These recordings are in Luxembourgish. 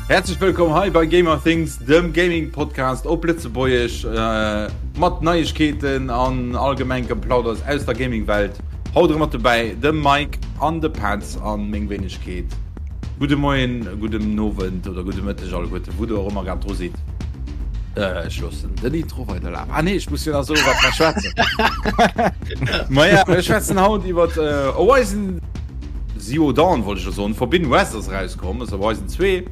Häerzlech wëllkomm hei bei Gamer Things, dem Gaming Podcast op Lëtzebuergesch mat Neiegkeeten an allgemeng Geplauders aus der Gaming Welt. Haut erëm mat dobäi de Mike an de Petz an meng Wéinegkeet. Gudde Moien, gudden Owend oder gudde Mëtteg alleguerten, wou der och ëmmer grad dru sidd. Ech loossen den Intro weiderlafen. Ah nee, ech muss jo nach soen, wat mer schwätzen. Maja, mir schwätzen haut iwwer Horizon Zero Dawn, wollt ech jo soen. Forbidden West ass erauskomm, ass Horizon 2.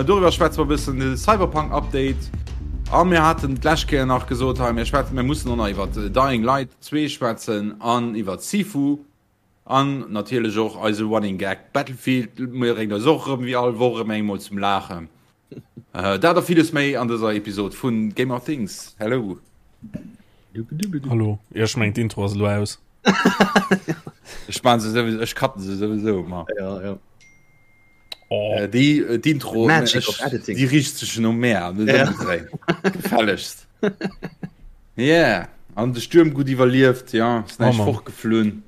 Doriwwer schwätze mer e bëssen, de Cyberpunk Update. A mir haten d'lescht Kéier nach gesot, hei mir schwätzen, mir mussen och nach iwwer Dying Light 2 schwätzen an iwwer Sifu. An natierlech och eise Running Gag Battlefield bréngt eis och erëm wéi all Woch erëm eng mol zum Laachen. Dat a villes méi an dëser Episod vun Gamer Things. Hello! Hallo, jo ech mengen d'Intro ass elo aus. Ech maan se souwisou, ech cutten se souwisou ëmmer. Ja, ja. Oh. Äh, déi äh, d'Intro Magic of editing. Déi richt sech no mär, net Ja. ëmgedréint. Gefällegst. Yeah, an de Stuerm gutt iwwerlieft, ja, ass näischt Oh Mann. fortgeflunn.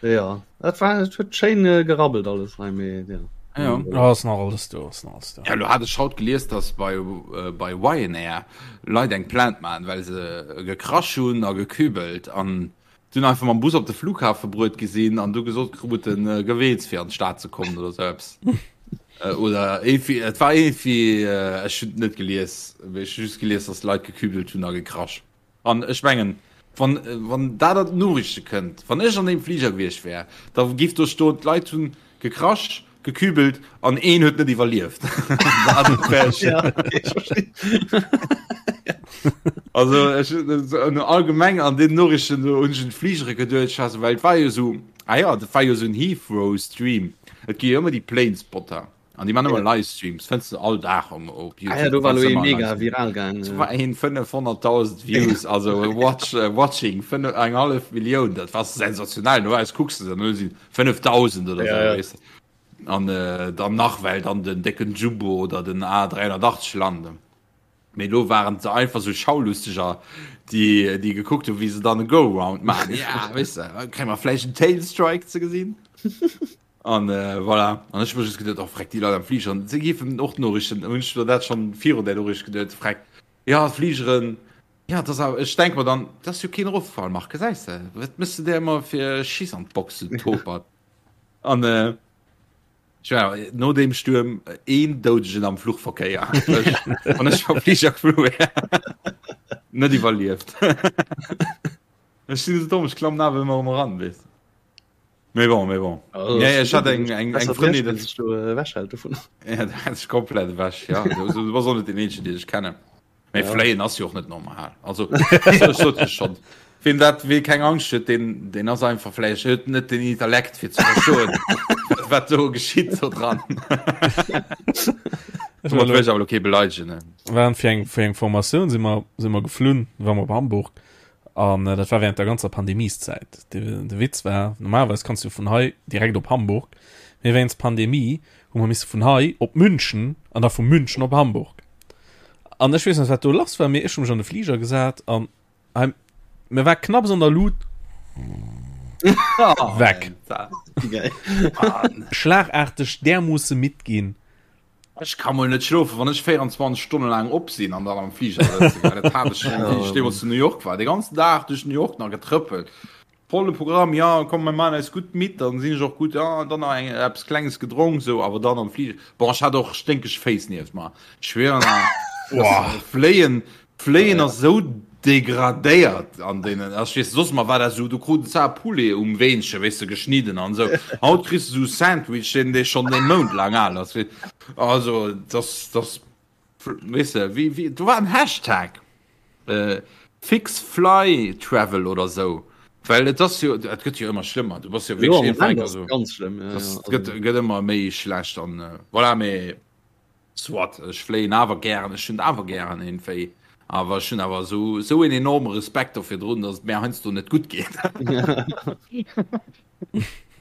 Ja, dat war et huet schéin äh, gerabbelt alles hei mee ja. Ja. Oh, ass nach alles do, ass nach alles do. Ja, lo hat ech haut gelies, dass bei, äh, bei Ryanair Leit eng Plainte maachen, well se gekrasch hunn a gekübelt an dunn einfach mam Bus op de Flughafe bruet gi sinn an du gesot kruten, äh, geweels fir an d'Stad ze kommen oder sou eppes. Äh, oder irgendwie, et war irgendwie, äh, ech hunn et net gelies, mee ech hu just gelies, dass Leit gekübelt hunn a gekrasch. An ech mengen, wann, wann dat an d'Noriichte kënnt, wann ech an deem Fliger gewiescht wär, da giff do stoen, d'Leit hunn gekrasch, gekübelt an een huet net iwwerlieft. Dat wär ech. Ja, okay, ech verstinn. Also ech, allgemeng an den Noriichten do hunn ech un d'Fligere geduecht, ech war sou, well et war jo sou, ah jo, dat war jo sou en Heathrow-Stream. Et gi jo ëmmer déi Planespotter. An déi man ëmmer Livestreams, fënns du all Dag um, op YouTube. Ah ja, do war lo ee mega viral gaang. Do war een 500.000 Views, also watch, äh, watching, fënnef, eng hallef Millioun, dat war sensationell. Normalerweis kucks du dann, do sinn 5.000 oder Ja, sou, ja. weess de. An äh, dann nach well dann den décken Jumbo oder den A380 landen. Mee lo waren se einfach sou Schaulusteger, déi, déi gekuckt hunn, wéi se dann e Go-Round maachen. Ja, weess de, kréie mer vläicht en Tailstrike ze gesinn? An äh, voilà. An ech hu just geduet, oh freck, déi Leit am Fliger, se géifen och d'Noriichten, hunn ech mir dat schonn virun där Noriicht geduet, freck, ja, d'Fligeren, ja, dat ass awer, ech denk mer dann, dat ass jo keen Eroffall, Marc, gesäis de, wat méchs de där ëmmer fir Schiss an d'Box, du Topert? An äh, ech war no deem Stuerm een Doudegen am Fluchverkéier, ech, wann ech mam Fliger geflu wär, net iwwerlieft. Ech sinn esou domm, ech klammen awer ëmmer erëm eran, weess de. Mais bon, mais bon. Also, ja, ich hatte eng, eng, eng Freundin, dat du äh, wechhält davon. Ja, dat ist komplett weg, ja. Du, du warst auch nicht den Einzigen, den ich kenne. Mee ja. Fléien ass jo och net normal. Also, ich sot ich schon. Wem dat wee keng Angst huet, den, den ass einfach vläicht huet net den Intellekt fir ze verstoen, wat do geschitt so dran. Ech awer okay beleidegen. Ne? Waren fir eng fir eng Formatioun si mer si mer geflunn, war mer op Hamburg An dat war während der ganzer Pandemieszäit. De, de Witz war, normalerweis kanns du vun hei direkt op Hamburg, mee wéinst Pandemie hu mer misse vun hei op München an da vu München op Hamburg. An ech weess net, wat do lass war, mee ech hu mech an de Fliger gesat an hei, mir war knapps an der Lut weg. Schlagarteg därmoosse midd ginn. Ech ka mol net schlofen, wann ech 24 Stonne laang op sinn an dann am Fliger sëtzen. Well dat hat ech schon, wéi ech deemools zu New York war. De ganzen Dag duerch New York nach getrëppelt. Volle Programm, ja, komm, mir maachen eis gutt midd, dann sinn ech och gutt, ja, dann nach eng, eppes Klenges gedronk, sou, awer dann am Fliger. Bon, ech hat och sténkeg Féiss nieft mer. Ech schwieren, ah, Fléien, Fléien ass esou degradéiert an deenen, ech weess, soss mar war dat esou, du krut zwar Poulet um Weenche, weess de, geschnidden an esou, haut kriss de esou Sandwich, deen dee schonn ee Mount laang al ass, also dass dass weess de, wéi wéi do war en Hashtag äh, fix fly travel oder esou, well et ass jo, et gëtt jo ëmmer schlëmmer, du bass jo wierklech iergendwann, also ganz schlëmm, ja, ja, gëtt gëtt ëmmer méi schlecht an voilà, mee Soit, ech fléien awer gären, ech hunn awer gären iergendwéi, awer ech hunn awer esou esou een enorme Respekt do virdrun, datt et mär heiansdo net gutt geet.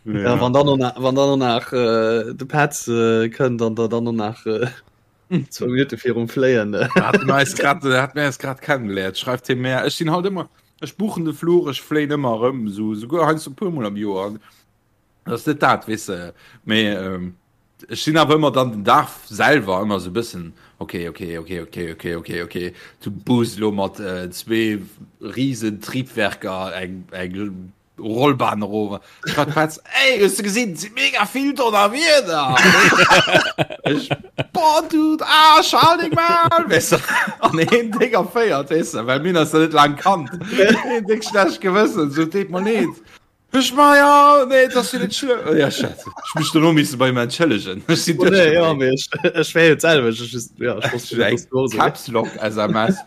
Ja, wann dann och wann dann och nach äh, de Petz äh, kënnt an der dann och nach äh, zwou Minutte virum Fléien. Äh. Hat mir eis grad, hat mir eis grad kennengeléiert, schreift hie mär. Ech sinn halt ëmmer, ech buchen de Fluch, ech fléien ëmmer erëm, esou souguer heiansdo e puermol am Joer. Dat ass net dat, weess de. Mee ähm, ech sinn awer ëmmer dann den Dag selwer ëmmer sou bëssen, okay, okay, okay, okay, okay, okay, okay, du buus lo mat äh, zwee riesen Triebwerker eng, eng Rollbahn erof. Ech war d'Petz, ey, hues du gesinn, et si mega vill Donnerwieder! Ech, boah, Dude, ah, schal deng mal! Weess de, an een déck erféiert, weess de, well mir hunn eis da net laang kannt. Een déck schlecht Gewëssen, sou, deet mer leed. Ech ma ja, nee, dat ass jo net schlëmm. Oh, ja, shit. Ech mech dono misse bei ihm entschëllegen. Ech sinn Oh, nee, ja, mee ech, ech wär jo d'selwecht. Ech just, ja, ech wosst net, dass du och sou. Caps Lock SMS.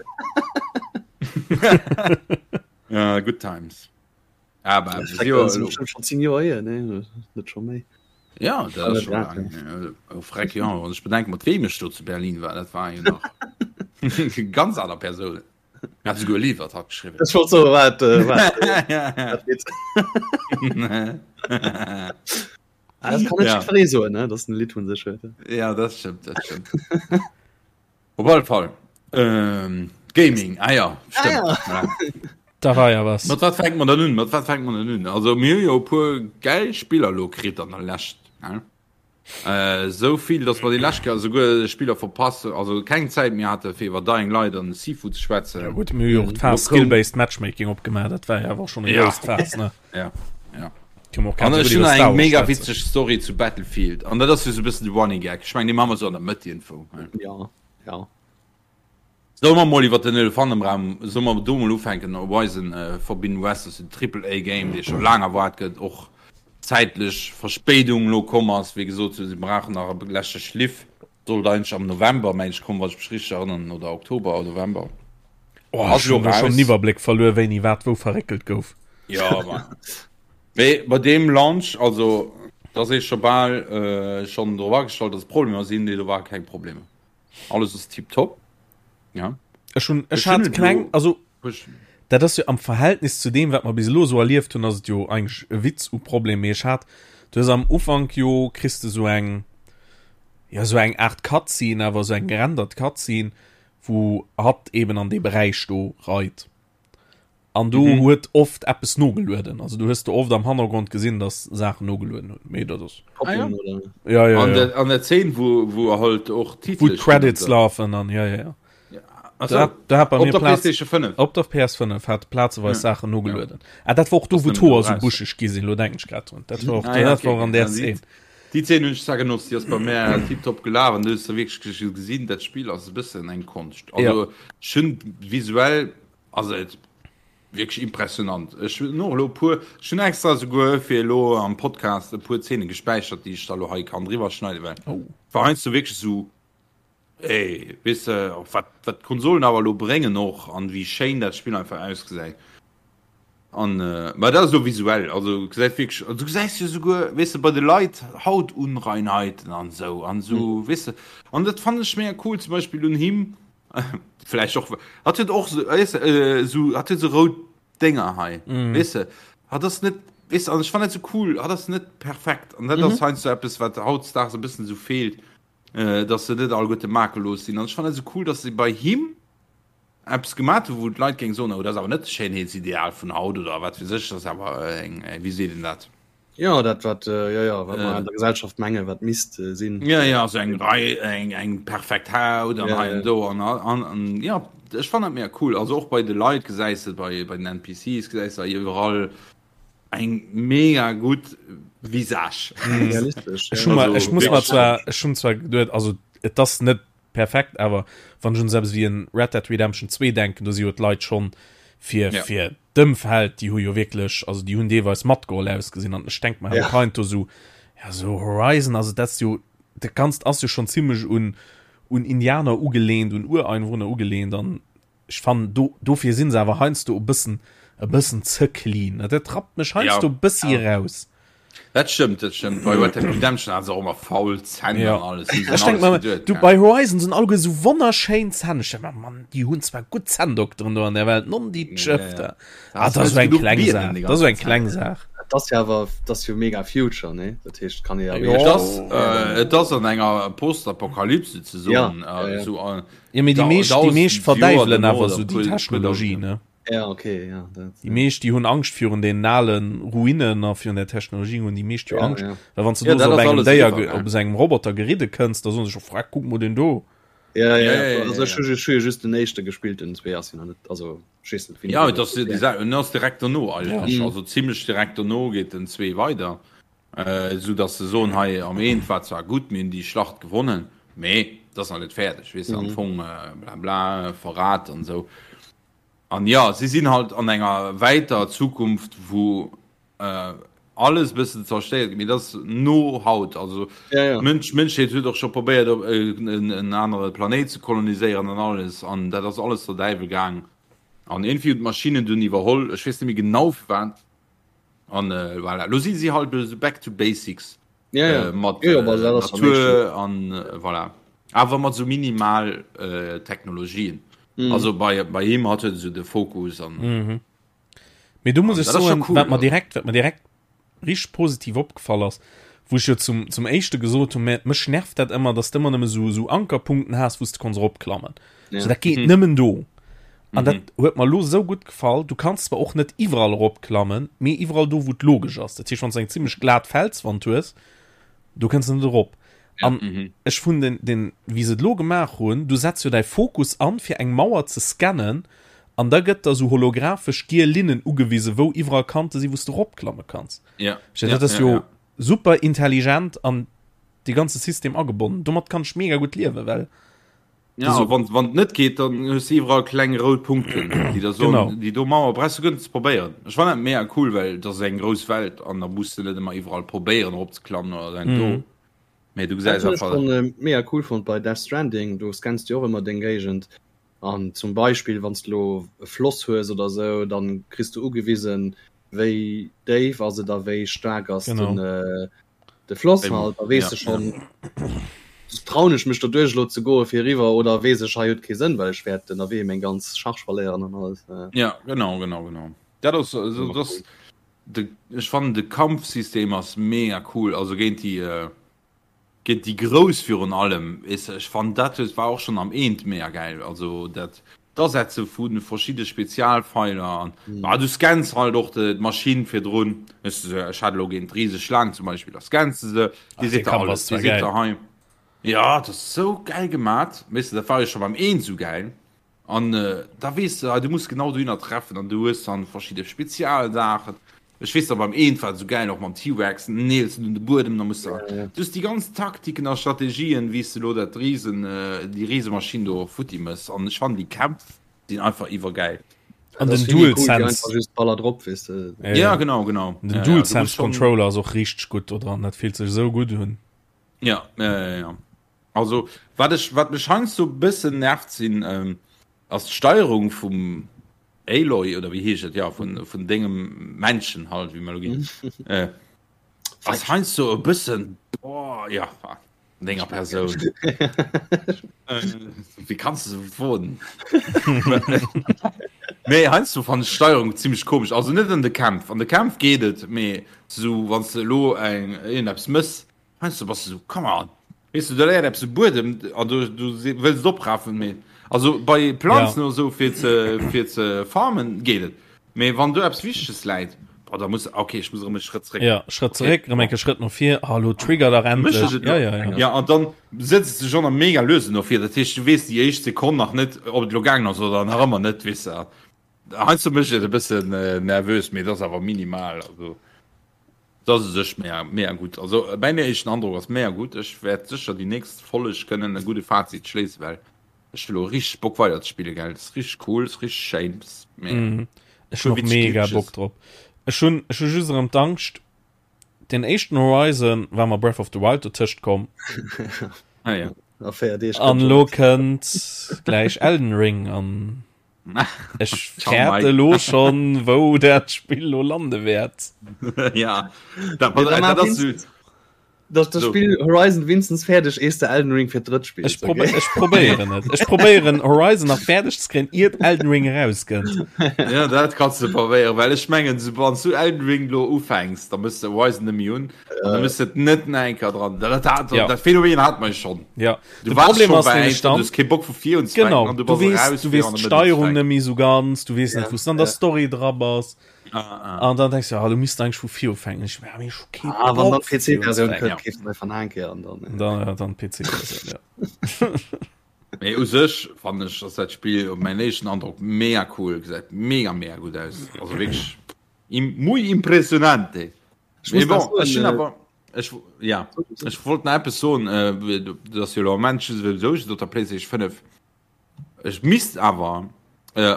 Ja, good times. Aber Ja, das jo, ist bestimmt schon 10 Joer hier, ne? Net schon méi. Ja, dat ass schon lang. Oh, freck, ja. Wann ech bedenke, mat wem ech do zu Berlin war, dat war jo nach ganz aner Persounen. Hat souguer e Lidd iwwert hatt geschriwwen. Ech wollt soen, wat, äh, wat, wat Lidd? Ah, das kann net Ja. jiddweree soen, ne? Dass en e Lidd vun sech huet. Ja, dat stëmmt, dat stëmmt. Op alle Fall. Ähm, Gaming, ah ja, stëmmt. Ah ja. Da war ja was. Mat wat fänkt man dann un? Mat wat fänkt man dann un? Also mir hu jo e puer gäil Spiller lo kritt an der Lescht. Ne? Esou vill, dass mer déi lescht Kéier esouguer Spiller verpasst, also keng Zäit méi hate fir iwwer Dying Light an Sifu ze schwätzen. Ja gutt, mir hu jo och d'Faass Skill-Based Matchmaking opgemaach, dat war jo awer och schonn e grousst Faass, ne? Ja, ja. Kënne mer och An grad ech esou gutt hunn iwwer nach Star eng Wars mega schwätzen. witzeg Story zu Battlefield an dat ass jo esou e bëssen de Running Gag. Ech mengen, dee maache mer esou an der Mëtt iergendwou, ne? Ja, ja. Solle mer mol iwwer den Elefant am Raum, solle mer do mol ufänken, Horizon Forbidden West ass jo den Triple A Game, dee scho laang erwaart gëtt, och zäitlech Verspéidung elo komm ass. Wéi gesot, se brauchen nach e leschte Schliff, sollt eigentlech am November, meng ech, kommen, wann ech mech richteg erënneren, oder Oktober oder November. Oh, ech hunn do schonn den Iwwerbléck verluer, wéini wat wou verréckelt gouf. Jo, ma mee bei deem Launch, also da ass ee scho bal schonn drop agestallt, dass et Problemer sinn, nee do ware keng Problemer. Alles ass tiptop. Ja. Ech hun ech hat kleng also dat ass jo am Verhältnis zu dem wat mer bis elo sou erlieft hunn ass et jo eigentlech e Witz u Problem mee ech hat du hues am Ufank jo kriss de sou eng ja sou eng Art Cutscene awer sou eng gerendert Cutscene wou hatt eben an dee Beräich do reit. An do mhm. huet oft eppes nogelueden. Also du hues du oft am Hannergrond gesinn, dass Saachen nogelueden hunn. Mee dat ass. Ah, ja. Ja, ja, an ja. Der, an der Szene wo, wo halt och Titel wo Credits laufen an ja ja ja. ja. Also, da, da hat bei op mir der Platz, PlayStation 5. Op der PS5 hat plazeweis ja. Sachen nogelueden. Ja. Ah, dat war och do Das wo nimmt Tor so raus. buscheg gi sinn, lo denken ich grad drun. Dat war och, Ah, ja, dat okay, war och an okay. der Ja, Szene. Déi Szene hunn ech zwar genotzt, déi ass bei mär tiptop gelaf an du hues da wierklech gesinn, dat Spill ass e bëssen eng Konscht. Also Ja. ech hunn visuell ass et wierklech impressionant. Ech hunn och elo e puer, ech hunn extra esouguer fir elo am Podcast e puer Zeene gespäichert, déi ech da elo hei kann driwwer schneiden, well Oh. war heiansdo wierklech esou, ey, weess de, och wat, wat d'Konsolen awer elo bréngen och an wéi schéin dat Spill einfach ausgesäit. An, mä dat ass elo visuell, also gesäit wierklech, du gesäis jo esouguer, weess de, bei de Leit Hautunreinheiten an esou an esou, weess de, an dat fannen ech mega cool, zum Beispill un him, vläicht och, hatt huet och esou, weess de, esou, hatt huet esou rout Dénger hei, weess de, hatt ass net, weess de, an ech fannen dat esou cool, hatt ass net perfekt an dat ass heiansdo eppes, wat hautdesdaags e bëssen esou feelt, dass se net alleguerte makellos sinn an ech fannen dat esou cool, dass se bei him eppes gemat hu wou d'Leit géing soen, oh dat ass awer net d'Schéinheetsideal vun haut oder wat weess ech, dat ass awer eng, wéi seet een dat? Jo, dat wat, jo jo, wat mer an der Gesellschaft menge wat misst sinn. Jo jo, esou eng Rei, eng eng perfekt Haut an hei an do an an an jo, ech fannen dat mega cool. Also och bei de Leit gesäis de, bei bei den NPCs gesäis de iwwerall eng mega gutt Visage. Realistesch, Ech hu mer, ech muss mer zwar, ech hunn zwar geduet, also et ass net perfekt, awer wann ech un esou eppes wéi en Red Dead Redemption 2 denken, do si jo d'Leit schonn fir Ja. fir d'Ëmfeld, déi hu jo wierklech, also déi hunn deelweis matgeholl ausgesinn an ech denk mer Ja. och heiansdo esou, ja esou Horizon, also dat ass jo, dat Ganzt ass jo schonn zimmlech un un Indianer ugelehnt, un Ureinwohner ugelehnt an Ech fannen do dofir sinn se awer heiansdo e bëssen e bëssen ze clean. Dat rappt mech heiansdo e bëssi eraus. Dat stëmmt, dat stëmmt. Bei Red Dead Redemption hat se och ëmmer faul Zänn an alles. Hu se Ech denk alles mer, geduet, du ja. bei Horizon sinn alleguer esou wonnerschéin Zänn. Ech denk mer, Mann, déi hunn zwar gutt Zänndokteren do an der Welt, non déi Ja, ja. Tschëfter. Da Ah, hast dat ass du esou eng genuch kleng Bienen Saach, déi dat ass esou ganze eng kleng Zäit. Saach. Et ass jo awer, et ass jo mega Future, ne? Dat heescht, kann ee jo Jo. Et ass, äh, et ass an enger Postapokalypse ze Ja, soen, ja, äh, ja. esou, äh, Jo, mee déi meescht, déi meescht verdäiwelen awer esou déi Technologie, ne? Ja, okay, ja, dat, Déi meescht déi hunn Angscht virun den alen Ruinen a virun der Technologie hunn déi meescht jo ja, Angscht. ja. Well wann s du Ja, do dat sou op ass engem alles Déier, eriwwer, ge- gell? op esou engem Roboter geridde kënns, da soen se scho, Freck, kuck mol deen do. Ja, ja, Ja, ja, ja, ja, also ja, ech hu ja. ju- ech hu jo just den éischte gespillt, den zwee ass jo nach net, also ech weess net wéini Ja, deen et ass déi ja. Sa- en ass direkt dono Ja. eigentlech, Mhm. also zimmlech direkt dono geet den 2 weider. Esou dass se soen, hei am Eent war zwar gutt, mir hunn déi Schlacht gewonnen, mee et ass nach net fäerdeg, weess de, am Fong bla bla, Verrat an esou. An jo, si sinn halt an enger wäiter Zukunft, wou alles e bëssen zerstéiert gëtt, mee dat ass no haut. Also d'Mënsch, d'Mënschheet huet och scho probéiert, op en anere Planéit ze koloniséieren an alles, an dat ass alles der Däiwel gaang. An iergendwéi hunn d'Maschinnen dunn iwwerholl, ech weess net méi genau firwat. An äh, voilà. Lo si si halt so back to basics. Ja, ja. Äh, mat Ja, äh, aber dat ass am éischten. Natur an äh, voilà. Awer mat so minimal äh, Technologien. Mhm. Also bei, bei him hat huet so de Fokus an Mhm. Mee do muss an ech dat ass schon soen, cool. wat mer Also. direkt, wat mer direkt richteg positiv opgefall ass, wou ech jo zum, zum éischte gesot hunn, mä mech nervt dat ëmmer, dass de ëmmer nëmme sou, sou Ankerpunkten has, wou s de konns eropklammen. Ja. So, dat geet Mhm. nëmmen do. An dat Mhm. huet mer lo sou gutt gefall. Du kanns zwar och net iwwerall eropklammen, mee iwwerall do, wou et logesch ass. Dat heescht, wann s de eng zimmlech glat Felswand hues, do kënns de net erop. Ja. An Mhm. ech hunn den, den, wéi se et lo gemaach hunn, du setz jo däi Fokus an, fir eng Mauer ze scannen, an da gëtt der sou holographesch giel Linnen ugewisen, wou iwwerall Kante sinn, wou s de eropklamme kanns. Ja. Ech, Ja, dat ass ja, jo ja. super intelligent an de ganze System agebonnen. Domat kann ech mega gutt liewen, well Ja, so, wann wann et net geet, dann hues du iwwerall kleng rout Punkten, déi der soen, genau. déi do Mauer brauchs du guer net ze probéieren. Ech fannen dat mega cool, well dat ass eng grouss Welt an da muss de net ëmmer iwwerall probéieren eropzeklammen oder dat do. Mhm. Mee du Dat gesäis hunn ech einfach. schonn äh, mega cool fonnt bei Death Stranding, do scanns du och ëmmer deng Géigend an zum Beispill wann s du lo e Floss hues oder sou, dann kriss du ugewisen, wéi déif ass et a wéi staark ass Genau. den äh, de Floss Wéi, halt, da weess ja, de ja. schonn, trauen ech mech doduerch elo ze goe fir eriwwer oder weess ech hei huet kee Sënn, well ech wäert ënnerwee meng ganz Charge verléieren an alles. Äh, Ja, genau, genau, genau. Dat ass, also, ëmmer das, cool. de, ech fannen de Kampfsystem ass mega cool, also géint déi, äh, géint déi Grouss virun allem, weess de, ech fannen dat huet, war och schonn am Eent mega gäil, also dat d'Asetze vu verschidde Spezialfeiler an, ah, du scanns halt och de, d'Maschinn virdrun, weess de, ech hat elo géint d'riseg Schlaang zum Beispill, da scanns de se, déi Ach, dee seet der Kampf alles, ass déi zwar seet gäil. der hei, ja, dat ass sou gäil gemat, weess de, dat war jo scho beim Eent sou gäil. An da weess de, du muss genau dohinner treffen an du hues dann verschidde Spezialsaachen. Ech weess nach beim eent war et esou gäil och mam T-Rex, den neels de un de Buedem, da muss de, du hues déi ganz Taktiken a Strategien, wéi s de elo dat Risen, déi Risemaschinn do futti mëss. An ech fannen déi Kämpf sinn einfach iwwergäil. An Dat ass den vill méi cool wéi DualSense. einfach just Baller drop, weess de. Ja, Ja, ja. genau, genau. Den Ja, ja, du muss DualSense schon. Controller ass och richteg gutt do dran, dat fillt sech esou gutt un. Ja, ja, ja, ja. Also wat ech, wat mech heiansdo bëssen nervt sinn, ass d'Steierung vum Aloy oder wéi heescht et, jo vun vun dengem Männchen halt, wéi mer elo ginn, ass heiansdo e bëssen, boah, ja, denger Persoun. Wéi kanns de sou woen? Mee heiansdo fannen ech d'Steierung zimmlech komesch, also net an de Kämpf, an de Kämpf geet et, mee sou wann s de elo eng iergendeppes mëss, Heiansdo bass de sou, come on, weess de, do läit eppes um Buedem an du, du wëlls et oprafen, mee also bei Planzen Ja. oder sou fir ze, fir ze farmen geet et, mee wann do eppes Wichteges läit, boah, da muss, okay, ech muss erëm e Schrëtt zréck. Ja, Schrëtt Okay, zeréck, erëm bon. eng Kéier Schrëtt no vir, ah, lo trigger dach Mécht endlech. ech et Ja, lo? ja, ja. Ja, an dann sëtz de schonn am mega luesen no vir, dat heescht, du weess déi éischt Sekonn nach net, ob et lo gaangen ass oder nach ëmmer net, weess de. Heiansdo mécht et e bëssen nervös, mee et ass awer minimal, also. Dat ass u sech mega, mega gutt. Also mäin éischten Androck ass mega gutt. Ech wäert sécher déi nächst Folleg kënnen e gudde Fazit schléissen, well ech hu lo richteg Bock weider ze spillen, gell. Ass richteg cool, ass richteg schéin, ass mega. Mm. Ech hunn Puer och witzeg mega Bock Glitches. drop. Ech hunn, ech hu just erëm d'Angscht, den éischten Horizon war mer Breath of the Wild dotëscht komm. Ah ja. A 4 Deeg An kënnt lo schon. kënnt gläich Elden Ring an Ech Ciao, fäerte Mike. lo schon, wou dat Spill lo lande wäert. Ja, dat, Nee, da dat maach ass Vincent. Dat das Spiel Horizon winstens fäerdeg ees de Elden Ring fir drëtt spills. Ech, probe okay. ech probéieren et. Ech probéieren Horizon nach fäerdeg ze kréien iert Elden Ring erauskënnt. Ja dat kanns du probéieren, well ech mengen so wann du Elden Ring lo ufänks, da mëss de Horizon nëmme hunn an da mëss et net nach eng Kéier dran. Dat, dat, ja. dat Phänomen hat man schon. Ja. Du warst Problem ass nämlech dann, du hast kee Bock vu vir unzefänken genau, an du, du wees, raus, du wees d'Steierung net méi so ganz, du wees ja. net wous an der Story dra bass. Ah, ah. An dann denkst du, ah, du misst eigentlich vu vir ufänken. Ich, ja, ich okay, ah, wann dann PC-Version kënnt, keeft du einfach eng Kéier an dann. Dann, ja, dann PC-Version, ja. Mee u sech fannen ech, ass dat Spill op mäin éischten Androck mega cool, gesäit mega mega gutt aus. Also wierklech im, muy impressionante. Ech Mee muss bon, nach soen, ech hunn äh, awer ech ja, ech wollt nach eppes soen, äh, dat ass jo elo am Moment souwisou just op der PlayStation 5. Ech misst awer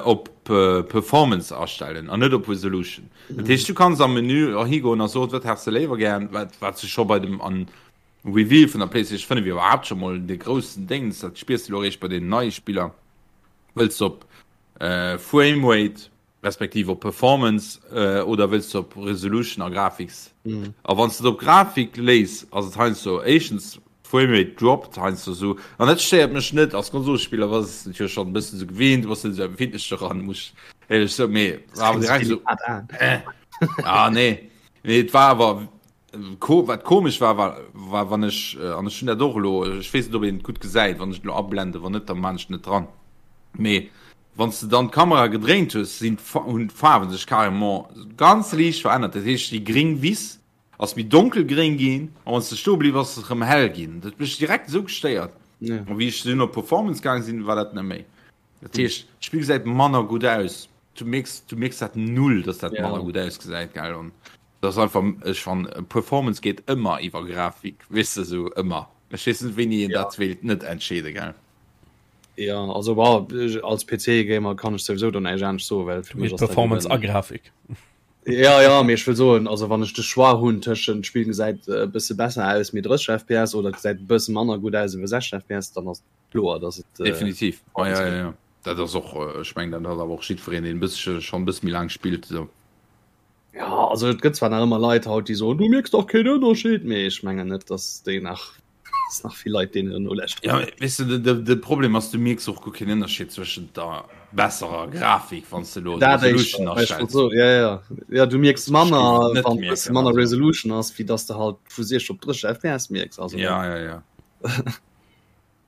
op Performance astellen an net op Resolution. Dat heescht du kanns am Menü och higoen a soen, wat häss de léiwer gären, wat wat se scho bei dem an Reveal vun der PlayStation 5 iwwerhaapt scho mol de groussen Déngs, dat spiers de lo eréischt bei den neie Spiller, wëlls de op Framerate Respektiv op Performance oder wëlls de op Resolution a Graphics? A wann s de et op Grafik léiss, ass et heiansdo éischtens Framerate droppt heiansdo esou, an dat stéiert mech net. Als Konsolspiller bass de et jo schonn e bëssen esou gewinnt, du bass net esou empfindlech doran, muss ech éierlech soen, mee war awer direkt esou, eh, ah nee. Mee et war awer, wat komesch war, war, war wann ech, an ech hunn dat och elo, ech weess net ob een et gutt gesäit, wann ech et elo ablenden, wann net, da maan ech et net dran, mee Wann s de dann d'Kamera gedréint hues, sinn hunn d'Faarwen sech carrément ganz liicht verännert. Dat heescht, déi gréng Wiss ass méi donkelgréng ginn a wann s de stoe bliww ass, ass se erëm hell ginn. Dat huet mech direkt esou gestéiert. A wéi ech dunn op Performance gaang sinn, war dat net méi. Dat heescht, d'Spill gesäit manner gutt aus. Du mierks, du mierks dat null, dass dat manner gutt ausgesäit, gell. An dat ass einfach, ech fann, Performance geet ëmmer iwwer Grafik, weess de, esou ëmmer. Ech weess net, wéini een dat wéilt net entscheede, gell. Ja also war als PC Gamer kann ech souwisou do näischt anescht soen, well fir mech ass dat Performance a eben Grafik. Ja ja, mee ech wëll soen, also wann ech de Choix hunn tëschent d'Spill gesäit e bësse besser aus mee 30 FPS oder et gesäit e bësse manner gutt aus iwwer 60 FPS, dann ass et kloer, dass et äh, Definitiv. Ah, Performance ja, gëtt. ja, ja. Dat ass och, äh, ech mengen, dat hat awer och jiddwereen, deen e bëssche schonn e bësse méi laang spillt, esou. Ja, also et gëtt zwar nach ëmmer Leit haut, déi soen, du mierks dach keen Ënnerscheed, mee ech mengen net, dass déi nach dass nach vill Leit deenen nolauschteren. Ja, weess de, de, de Problem ass, du mierks och guer keen Ënnerscheed zwëschent der besserer Grafik, wann s de elo Dat d'Resolution éischter, ech wollt astells. soen, ja, ja, ja, du mierks Ech géif manner, et net wann e bësse mierken, manner also. Resolution ass, wéi dass de halt vu 60 op 30 FPS mierks, also. Ja, ja, ja.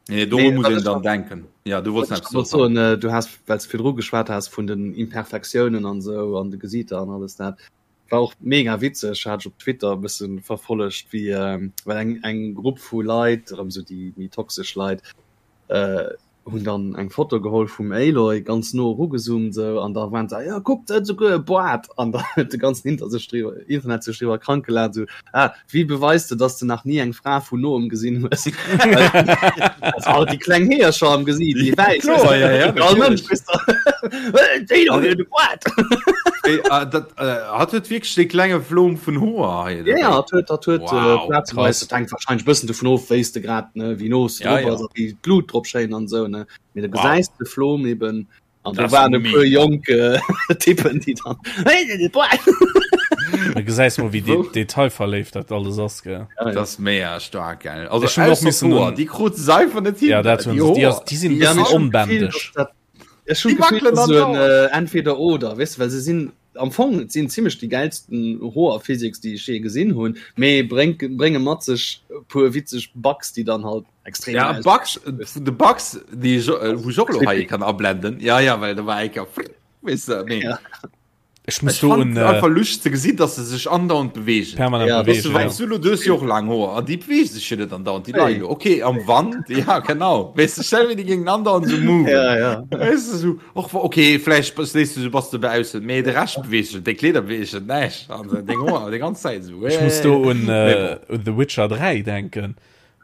Nee, doru Nee, muss wat een ech dann nach denken. Ja, du wollts wat nach ech eppes wollt soen, Sam. soen, äh, du has, well s de virdru geschwat has vun den Imperfektiounen an esou an de Gesiiter an alles dat, war och mega witzeg, hat ech op Twitter e bëssen verfollegt, wéi, well eng eng Grupp vu Leit, erëm esou déi méi toxesch Leit, hunn dann eng Foto geholl vum Aloy, ganz no erugezoomt esou, an da waren se, jo kuckt, se huet esouguer e Boart! An da huet de ganzen Inter sech driwwer, Internet sech driwwer krank gelaacht, esou, ah, wéi beweis de, dass de nach ni eng Fra vun noem gesinn hues? Also all déi kleng Heeërcher am Gesiit, déi wäiss, Kloer, ja, ja, all natierlech. Mënsch, weess de, déi do huet e Boart! Hey, äh, dat, äh, hat huet wierklech dee klenge Flom vun Hoer hei Ja, ja, dobäi. dat huet, dat huet äh, Wow, plazeweis, krass. dat hänkt wahrscheinlech bëssen dovun of, wéi s de grad, ne, wéi no s de Ja, drop ja. ass a wéi d'Blut drop schéin an esou, ne. Mee da Wow. gesäis de Flom eben an do Dat ass waren e puer mega. jonk äh, Typen, déi dann Hey, de Boart! Da gesäis mol, wéi de Wou? detailverléift dat alles ass, gell. Ja, ja. Dat ass mega staark, gell. Also Ech hunn och ausser missen d'Hoer, un déi krut se einfach net hin. Ja, dat Déi hunn se. Déi ass, Hoer, déi sinn e déi Ja, bëssen mee ech hunn d'Gefill, onbändeg. dass dat Ech hun Déi d'Gefill, wackelen dat ass esou en andauernd. entweder oder, weess de, well se sinn am Fong, et sinn zimmlech déi gäilsten Hoer-Physics, déi ech jee gesinn hunn, mee bréngt, brénge mat sech e puer witzeg Bugs, déi dann halt extrem Ja, ausgesinn, Bugs, weess de. de Bugs, déi ech, wou ech och elo hei Creepy. kann ablenden, ja, ja, well do war eng Kéier, weess de, mee. Ja. Ech muss Ech do fand un et äh, einfach luscht ze gesinn, dass se sech andauernd bewegen. permanent Ja, Weißt du, bewegen, wann ja. du lo, du hues jo och laang Hoer an déi bewegen sech jo net andauernd, déi leien Hey. do. Okay, am Wand, ja genau. Weißt du, stell mir déi géingen andauernd so moven. Ja, ja. Weißt du, so, och, okay, vläicht bass, lees du so, bass du baussen, mee de Rescht beweegt sech, deng Kleeder bewegen sech näischt an deng Hoer déi ganz Zäit so. Ech muss do un, Mee äh, bon. un The Witcher 3 denken.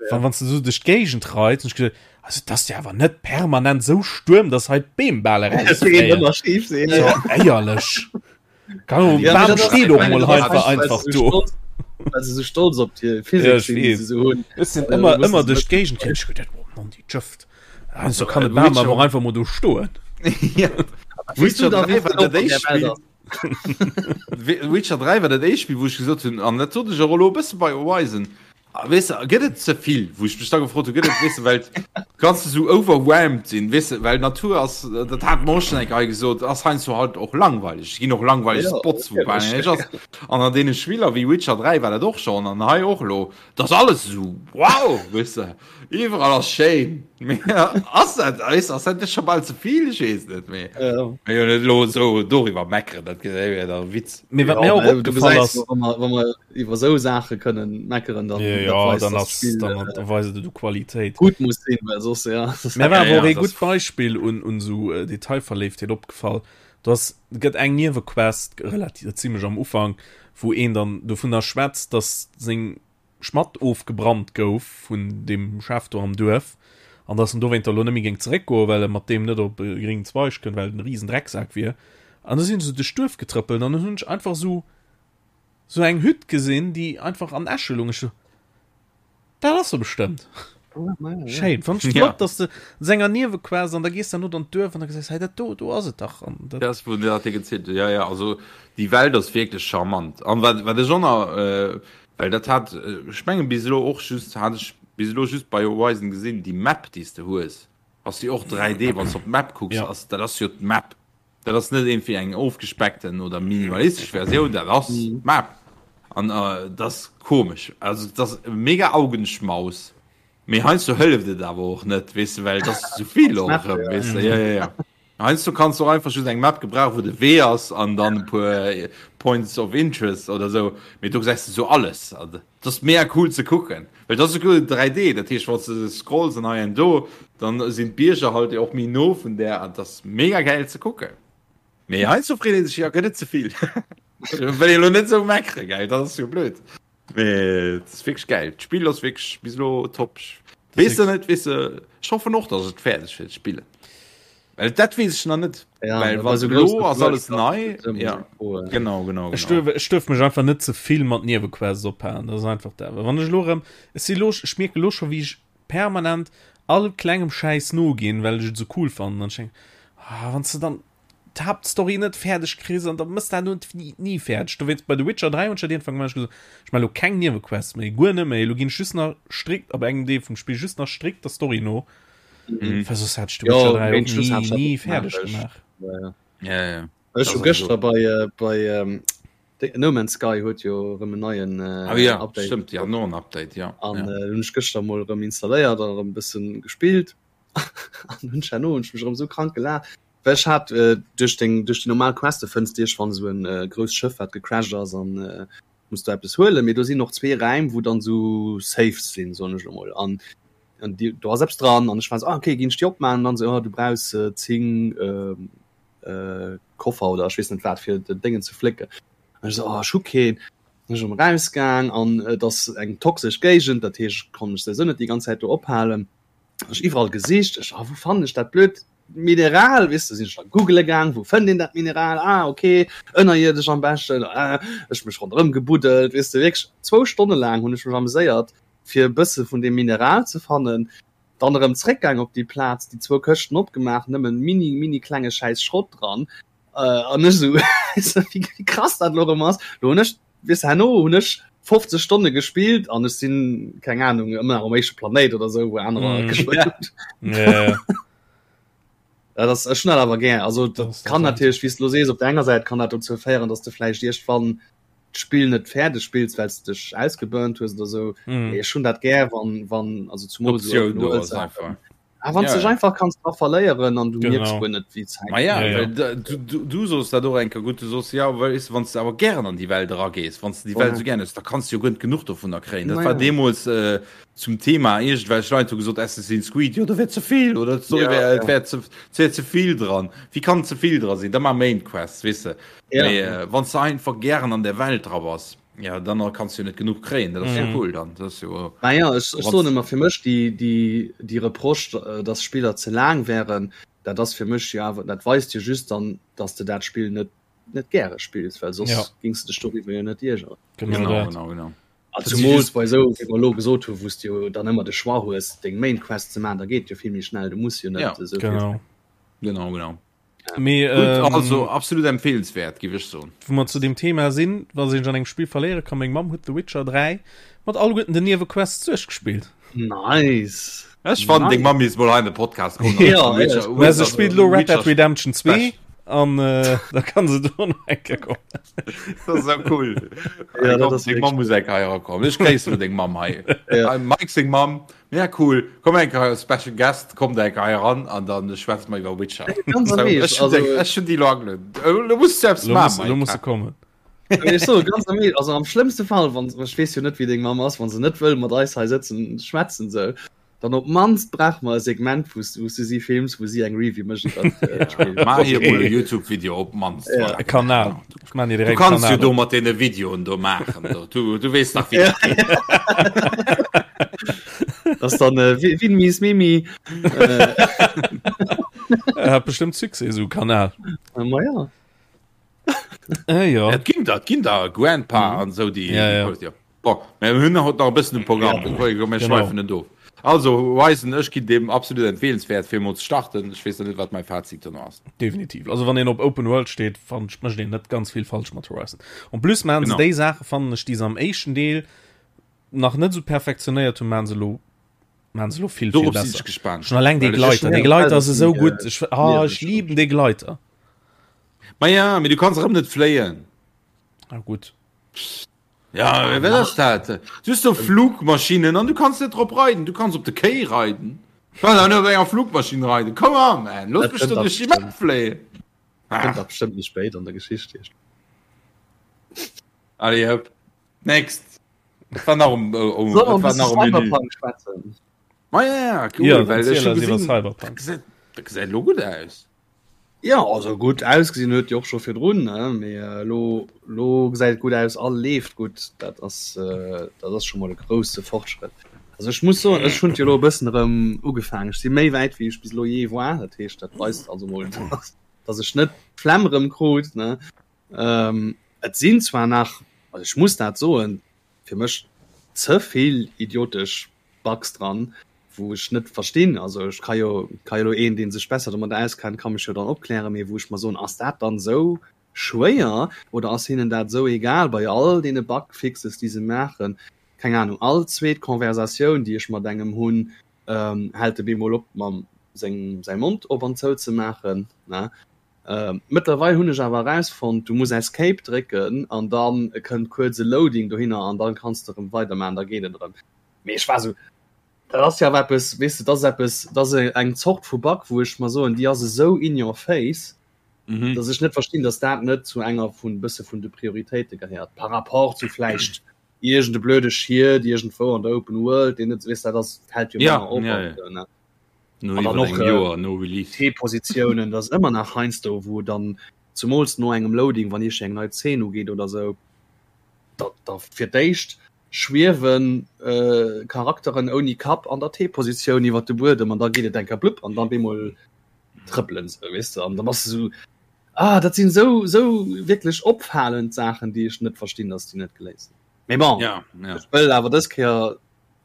Wann, wann du so duerch d'Géigend reits, hun ech geduet, also dat ass jo awer net permanent sou Stuerm, dass hei d'Beem bal erausfléien. Ëmmer schief sinn. So, éierlech. Kann Ja, Bam dat ass- steet och ich meine, mol dat ass einfach weil einfach se so do. stolz- Well se so stolz op déi Ja, Physik ich sinn, déi weess. se so hunn. Ech sinn Äh, ëmmer muss ëmmer se duerch net- d'Géigend gerannt, ech geduet, oh Mann, déi Jëft. Also kann de Äh, Bam Witcher- awer och einfach mol do stoen. Ja. Weess du Witcher da, 3 wéi war vill dat op an der éischt Welt Spill. ass? Witcher 3 war dat éischt Spill, wou ech gesot hunn, an dat sot ech och elo e bësse bei Horizon. Weess de, gëtt et ze vill, wou ech mech da gefrot hu, gëtt et, weess de, well kanns de sou overwhelmed sinn, weess de, well d'Natur ass, dat hat mer och schonn eng Kéier hei gesot, ass heiansdo halt och langweileg. Et ginn och langweileg Ja, Spots, wou bal natierlech. näischt ass. An an deene Spiller wéi Witcher 3 war dat och schonn an hei och elo, et ass alles esou wow, weess de, iwwerall ass schéin. Mee ass dat, weess de, ass dat net scho bal ze vill? Ech weess net, mee Ja. mee jo net elo esou doriwwer meckeren, dat wär da Witz. Mee wat Ja, mir och mä du opgefall gesäis ass, jo, wa mer, wa mer iwwer esou Saache kënnen meckeren, dann Ja, dat ja, weist, dann dass ass, d'Spill dann äh, weist et u Qualitéit. gutt muss sinn, well soss ja. Mir war Ja, awer ja, och ee das gutt Beispill un, un esou äh, Detailverléiftheet opgefall. Do ass, gëtt eng Niewequest, relativ zimmlech am Ufank, wou een dann dovunner schwätzt, dass seng Schmatt ofgebrannt gouf vun deem Chef do am Duerf an dass en dowéinter elo net méi géing zeréckgoen, well e mat deem net op e gréngen Zweig kënnt, well et en riesen Drecksak wier. An da sinn se duerch d'Duerf getrëppelt an dann hunn ech einfach esou esou eng Hütt gesinn, déi einfach an Äsche lung. Ech sou, Dat ass se bestëmmt. Schéin. Fand ech Ja. flott, dass de senger Niewequest an da gees dann no an d'Duerf an da gesäis, hei dat do, do ass et dach. An dat, Dat ass, wou dat dir gezielt huet. Ja, ja, also déi Welt ass wierklech charmant. An wat, wat ech och nach, äh, well dat hat, ech mengen bis elo och just, hat ech bis elo just bei Horizon gesinn, déi Map, déi s de hues, ass déi och 3D, wann s de op d'Map kucks, Ja. ass, dat ass jo d'Map. Dat ass net iergendwéi eng ofgespeckten oder minimalistesch Versioun, dat ass d'Map. An dat ass komesch. Also dat ass mega Augenschmaus. Mee heiansdo hëlleft et awer och net, weess de, well et ass zu vill och erëm, weess de. Ja, ja, ja. Heiansdo kanns du och einfach just eng Map gebrauchen, wou de Wee ass an dann e puer Points of Interest oder esou. Mee do gesäis de sou alles. Et ass mega cool ze kucken, well et ass esouguer 3D, dat heescht wann s de scrolls an hei an do, dann sinn d'Bierger halt och méi no vun där an et ass mega gäil ze kucken. Mee heiansdo freet ee sech, jo gëtt et ze vill? Wëll ee lo net esou meckere gell, dat ass jo blöd. Mee et ass wierklech gäil, d'Spill ass wierklech bis elo top. Weess de net, weess de, ech hoffen och, datt ech et fäerdeg wäert spillen. Well dat weess ech nach net. Ja, Well bei wann so elo grousse ass alles Wurscht nei. ass et ëmmer Ja, esou froen. genau, genau, Ech genau. duerf, ech duerf mech einfach net ze vill mat Niewequests ophalen. Dat ass einfach dat. Well wann ech elo erëm, ech si elo, ech mierke elo scho wéi ech permanent all klengem Schäiss noginn, well ech et esou cool fannen. An ech denken, ah, wann s de dann d'Haaptstory net fäerdeg kriss an da mëss dat elo ni, ni fäerdeg. Dowéinst bei The Witcher 3 hunn ech dat iergendwann gemaach, ech gesot, ech maache elo keng Niewequests méi, guer net méi. Elo ginn ech just nach strikt, ab engem Deel vum Spill, just nach strikt der Story no. Mhm. Well soss hätt ech The Jo, Witcher 3 och géint Schluss ni, hat ech ni dat fäerdeg gemaach. gemaach. Ja, ja. Ja, ja. Ech Das hu ass gëschter so. bei äh, bei ähm, de- No Man's Sky huet jo erëm en neien äh, Ah, ja, Update stimmt, ja, no en Update, ja. an ja. äh, hunn ech gëschter mol erëm installéiert an erëm e bëssen gespillt an hunn ech herno hunn ech mech erëm sou krank gelaacht well ech hat äh, duerch deng duerch déi normal Queste fënns de iergendwann esou en äh, grousst Schëff wat gecrashed ass an äh, muss du eppes huelen mee do sinn och zwee Räim wou dann sou Safes sinn soen ech elo mol an an die, do ass eppes dran an ech war so, ah, okay ginn ech déi opmachen an dann so, oh, du brauchs äh, 10 ähm, äh, Koffer oder ech weess net wat fir den Déngen ze flécken an ech so, oh, ech hu keen Dann ech erëm rausgaang an et ass eng toxesch Géigend, dat heescht ech konnt mech souwisou net déi ganz Zäit do ophalen. Ech iwwerall gesicht, ech, ah, wou fannen ech dat blöd Mineral, weess de, sinn ech da googele gaang, wou fënnt een dat Mineral, ah, okay, ënnerierdesch am beschten, ah, ech mech ronderëm gebuddelt, weess de, wierklech zwou Stonne laang hunn ech mech ameséiert, fir e bësse vun deem Mineral ze fannen, dann erëm zréckgaang op déi Plaz, déi zwou Këschten opgemaach, nëmmen mini, mini klenge Schäiss Schrott dran, an ech esou, weess de, wéi krass dat elo erëm ass, lo hunn ech, weess de, herno hunn ech 50 Stonne gespillt an ech sinn, keng Ahnung, ëmmer nach um éischte Planéit oder esou, wou anerer Mm. gespillt hunn. Ja, Ja, das ech hunn dat awer gär. Also Das dat ass kann dat natierlech, wéi s de elo sees, op der enger Säit kann dat dozou féieren, dass de vläicht iergendwann d'Spill net fäerdeg spills, well s de dech ausgeburnt hues oder esou. Mm. Mee ech hunn dat gär, wann, wann also zumol esou D'Optioun Open do World ass Saachen. einfach. Ah, wann s Ja, dech ja. einfach kanns dra verléieren an du mierks Genau. guer net, wéi d'Zäit Ma ja, Ja, ja. well da, du, du, du sos dat och eng Kéier gutt, du sos, ja, well weess de, wann s de awer gären an déi Welt eragees, wann s de déi Welt Voilà. esou gären hues, da kanns de jo guer net genuch dovunner kréien. Dat Ma war ja. deemools äh, zum Thema, iergendwelch Leit hu gesot, Assassin's Creed, jo, do wär ze vill, oder d'Story Ja, wär, et ja. wär ze, et wär ze vill dran. Wéi kann ze vill dra sinn? Da mar Main Quests, weess de. Ja. Mee äh, wann s de einfach gären an der Welt dra bass, ja, dann kanns du jo net genuch kréien. Dat ass jo Mhm. cool dann. Dat ass jo, Ma ja, ech, ech wann soen ëmmer fir mech déi, déi, déi Reproche, äh, dass Spiller ze laang wären, dat ass fir mech jo awer, dat weist jo just dann, dass de dat Spill net, net gäre spills, well soss Ja. gings de dech doriwwer jo net iergeren. Genau genau, dat. genau, genau. A Dat si zumools just bei esou, wéi mer elo gesot hunn, wou s de jo dann ëmmer de Choix hues, deng Main Quest ze maachen, da geet jo vill méi schnell, du muss jo net Ja. esou vill Genau. Genau, genau. Mee, Gutt, ähm, also absolut empfehlenswert, géif ech soen. Wou mer zu deem Thema sinn, wa sech an engem Spill verléiere kann, meng Mamm huet The Witcher 3 mat alleguerten den Niewequests duerchgespillt. Nice. Ech fannen, deng Mamm misst mol hei an de Podcast kommen. Ja, Witcher, Mä se Witcher, spillt elo Red Dead Witcher Redemption 2 Special. an äh, da kann se do nach eng Kéier kommen. Dat ass esou cool. Ja, dat Komm, ass deng wierklech Mamm muss eng Kéier hei erakommen. Ech gréissen deng Mamm hei. Ja. Hei, Mike seng Mamm. Ja, cool. Komm eng Kéier, Special Guest, kommt eng Kéier hei eran an dann schwätze mer iwwer Witcher. Ganz So, am Eescht, ech hun also, deng, ech hun déi lo agelueden. Lo muss du eppes Lo maachen, muss, lo muss Mike. se kommen. Ech soe ganz am Eescht, also am schlëmmste Fall, wann, ech weess jo net, wéi deng Mamm ass, wann se net wëll mat eis hei sëtzen, schwätzen sou, dann op d'mannst brauche mer e Segment, wou s, wou s du si films, wou si eng Review mécht iwwer d'Spill. Maach hir Okay. mol e YouTube-Video op d'mannst. Ja. Voilà. E Kanal. Ech maan dir Du direkt e kanns jo Kanal do op. mat deene Videoen do maachen. Do. Du, du weess dach, wéi Ja. dat geet. Das ass dann äh, Win Win Mies Mimi. Äh, Er hat bestimmt Succès, esou e Kanal. ma ja. Äh, ja. Et ginn der, et ginn der Grandpa an esou déi Ja, ja. ja. Bon, mir hunn haut nach e bëssen um Programm, ja. mir Genau. schweifen net of. Also Horizon, ech ginn deem absolut empfehlenswert fir emol ze starten. Ech weess nach net wat mäi Fazit dono ass. Definitiv. Also wann een op Open World steet, fannen ech mécht een net ganz vill falsch mat Horizon. En plus maachen se Genau. déi Saache fannen ech déi se am éischten Deel nach net esou perfektionéiert hunn, maachen se elo maachen se elo vill vill Dorop sinn besser. ech gespaant. Schon alleng dee Well ech Gleiter, dee Ja, Gleiter ass esou äh, gutt. Ech ah, ech lieweg. liben dee Gleiter. Ma ja, mee du kanns erëm net fléien. Ah gutt. Ja, wat ass dat? Du hues do Flugmaschinen an du kanns net drop reiden. Du kanns op de Kéi reiden. Du kanns awer net op enger Flugmaschinn reiden. Come on, man, looss Dat mech kënnt do da duerch déi Map bestimmt. fléien. Kënnt Ah, da bestimmt méi spéit an der Geschicht. allez, hopp. Next. Wat war nach um, um, Soll mer wat e war bësse nach um Menü? Cyberpunk schwätzen? Ma ja, ja, cool, Ja, well ech erziel hu eis iwwer gesinn, dat Cyberpunk. gesäit, dat gesäit elo gutt aus. Jo, also gutt ausgesinn huet jo och scho virdrun, ne, mee elo, elo gesäit et gutt aus a leeft gutt. Dat ass, dat ass scho mol e grousse Fortschrëtt. Also ech muss soen, ech hunn et jo elo e bëssen erëm ugefaangen. Ech si méi wäit wéi ech bis elo jee war. Dat heescht, dat weist also mol, dass ech net d'Flemm erëm krut, ne. Et sinn zwar nach, also ech muss dat soen, fir mech ze vill idiotesch Bugs dran, wou ech net verstinn, also ech ka jo, ka jo elo een, dee sech besser domat auskennt, ka mech jo dann opklären, mee wou ech mer soen, ass dat dann esou schwéier oder ass hinnen dat esou egal bei all deene Bugfixes, déi se maachen? Keng Ahnung, all zweet Conversatioun, déi ech mat engem hunn, hält e bemol op mam seng säi Mond op an zou ze maachen, ne? Mëttlerweil hunn ech awer erausfonnt, du muss Escape drécken an dann kënnt kuerz e Loading dohinner an dann kanns de erëm weidermaachen, da geet et erëm. Mee ech war esou, dat ass jo awer eppes, weess de, dat ass eppes, dat ass eng Zort vu Bug, wou ech mer soen, déi ass esou in your face, Mhm. dass ech net verstinn, dass dat net zu enger vun bësse vun de Prioritéite gehéiert, par rapport zu vläicht iergend e blöde Schied iergendwou an der Open World, deen net, weess de, dat ass, fält jo Ja, manner op ja, an ja. esou, ne? No An dann iwwer och engem äh, Joer no Release. T-Positiounen, dat ass ëmmer nach heiansdo, wou dann zumools no engem Loading, wann iergend eng nei Zeen ugeet oder esou, da, da fir d'éischt schwiewen äh, Charakteren ouni Kapp an der T-Positioun iwwer de Buedem an da geet et eng Kéier blupp an dann bemol trëppelen se, weess de, an da bass de sou, ah, dat sinn sou, sou wierklech opfalend Saachen, déi ech net verstinn, dass déi net geléist sinn. Mee bon, Ja, ja. ech wëll awer dës Kéier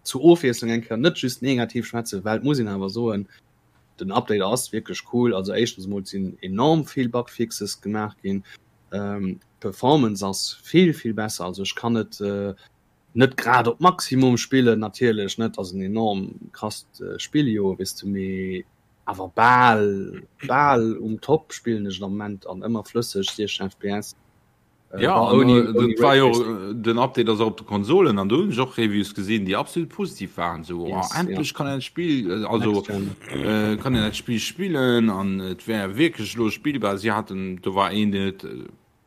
zur Ofwiesslung eng Kéier net just negativ schwätzen, well et muss een awer soen, den Update ass wierklech cool. Also éischtens emol sinn enorm vill Bugfixes gemaach ginn, d'Performance ass vill vill besser. Also ech kann et net grad op Maximum spillen natierlech net, ass en enorm krasst Spill jo weess de, mee awer bal bal um Top spillen ech et am Moment an ëmmer flësseg 60 fps. Äh, ja, an, ouni, äh, ouni war jo, äh, den Update ass op de Konsolen an do hunn ech och Reviews gesinn, déi absolut positiv waren so yes, oh, endlech ja. kann en Spiel äh, also äh, kann en dat Spiel spillen an et wär wierklech lo spielbar. Si hatten do war een den et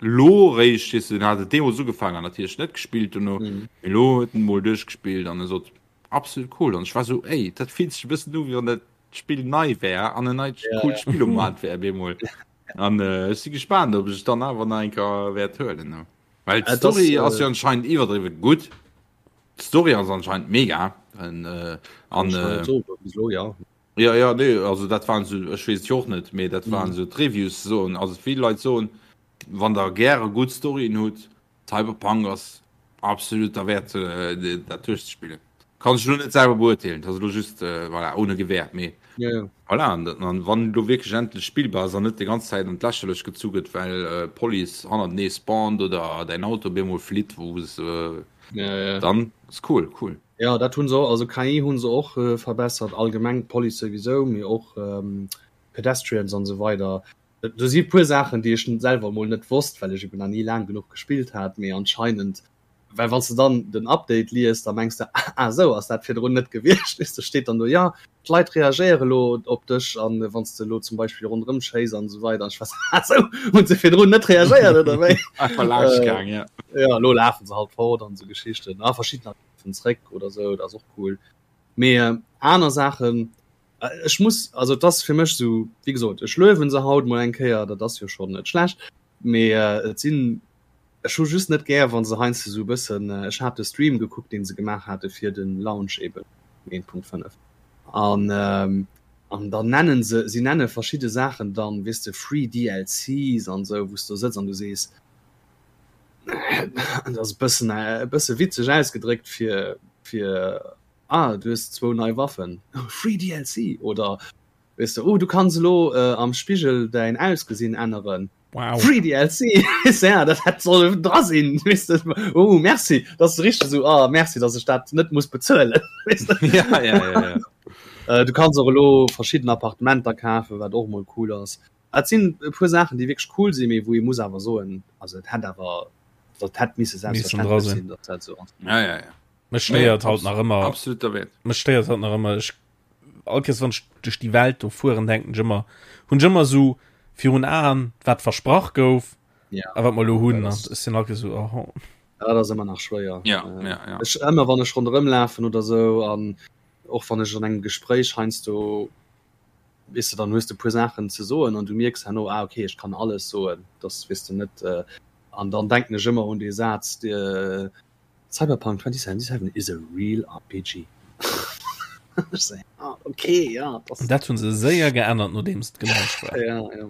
lo réischt is den hat Demo so gefangen an natierlech net gespillt und mhm. lo huet en mol duerchgespillt an e sot absolut cool an ech war so ey dat fillt sech e bëssen u wéi wann dat Spill nei wär an en neit ja, coolt ja. Spill um Markt wär bemol. An äh, ech si gespaant, ob ech dann awer nach eng Kéier wäert huelen. Ne? Well Äh, d'Story das, ass äh, jo anscheinend iwwerdriwwe gutt. D'Story ass anscheinend mega. An, äh, an Ech kann äh, net soen, bis elo, ja. ja, ja, nee, also dat waren so, ech weess et jo och net, mee dat waren Mhm. so d'Reviews soen, also vill Leit soen, wann der gäre gutt Storyen hutt, Cyberpunk ass absolut derwäert, äh, dat duerchzespillen. Kann ech lo net selwer beurteelen, dat ass elo just voilà, ohne Gewehr, mee ja, ja. Voilà, an, an wann lo wierklech endlech spillbar ass an net déi ganz Zäit an d'Lächerlech gezu gëtt, well Police hannertenee spawnt oder däin Auto op eemol flitt, wou se ja, ja. dann ass cool, cool. Ja, dat hunn se och, also KI hunn se och äh, verbessert, allgemeng d'Police souwisou, mee och ähm, Pedestrians an esou weider. Do si puer Saachen, déi ech selwer mol net wosst, well ech eben nach ni laang genuch gespillt hat, mee anscheinend well wann s de dann den Update liest, da mengs de, ah esou ass dat virdrun net gewiescht, weess de, steet dann do, jo d'Leit reagéiere lo op dech an wann s de lo zum Beispill ronderëm schéiss an esou weider an ech war sou, ah esou hunn se virdrun net reagéiert oder wéi? Einfach laanscht gaang, ja. Jo, elo lafe se halt fort an esou Geschichten a verschiddener lafen zréck oder esou, dat ass och cool. Mee aner Saachen, ech muss, also et ass fir mech esou, wéi gesot, ech luewen se haut mol eng Kéier, dat ass jo schonn net schlecht, mee et sinn Ech hu just net gär wann se heiansdo sou e bëssen, ech hat de Stream gekuckt deen se gemaach hate fir den Launch eben 1.5 an an dann nennen se, si nenne verschidde Saachen dann weess de free DLCs an sou wou s du sëtz an du sees dat ass e bëssen e bësse witzeg ausgedréckt fir fir ah du hues zwou nei Waffen free DLC oder weess de oh du kanns elo am Spigel däin Ausgesinn änneren. Wow. Free DLC ja, dat hätt soll dra sinn weess de. Oh merci, dat ass richteg esou ah merci, datt ech dat net muss bezuelen weess de. Ja, ja, ja, ja. Äh, du kanns och elo verschidden Appartementer kafen, wat och mol cool ass. Et sinn e puer Saachen, déi wierklech cool sinn, mee wou ee muss awer soen, also et hätt awer dat hätt misse Missen dra selbstverständlech sinn. sinn, datt dat esou ass. Ja, ja, ja. Mech stéiert halt nach ëmmer Absolut derwäert. mech stéiert halt nach ëmmer ech all Kéiers wann ech duerch déi Welt do fueren denken ech ëmmer hunn ech ëmmer esou virun Aen wat versprach gouf Ja. a wat mer elo hunn Dat an ass- ech sinn all Kéiers esou oh. Ja, dat ass ëmmer nach schwéier. Ja, Äh, ja, ja. Ech ëmmer wann ech ronderëm lafen oder sou an och wann ech an engem Gespréich heiansdo weess de, dann hues de puer Saachen ze soen an du mierks herno ah okay ech kann alles soen, dass weess de net äh, an dann denken ech ëmmer un dee Saz de Cyberpunk 2077 is a real RPG. Ech sou, ah, okay, ja, das Dat hunn se séier geännert nodeems et gelaunscht war. Ja, ja.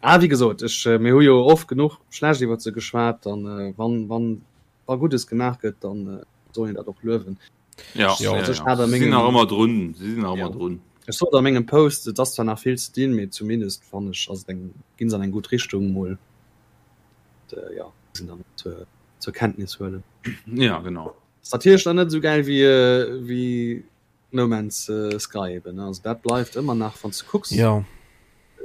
Ah, wéi gesot, ech, äh, mir hu jo oft genuch schlecht iwwer se geschwat, dann äh, wann, wann wa Guddes gemaach gëtt, dann äh, soll een dat och luewen. Ja, Ja, ja, also ech ja. hat a Si sinn mengem- nach ëmmer drun. Si sinn nach Ja. ëmmer drun. Ech sot a mengem Post, et ass zwar nach vill ze dinn, mee zumindest fannen ech, ass et eng, ginn se an eng gutt Richtung mol. Und, äh, ja, sinn dann zur, zur Kenntnis huelen. Ja, genau. Ass natierlech dann net esou gäil wéi, äh, wéi No Man's äh, Sky eben, ne? Also dat bleift ëmmer nach, wann s du kucks. Ja.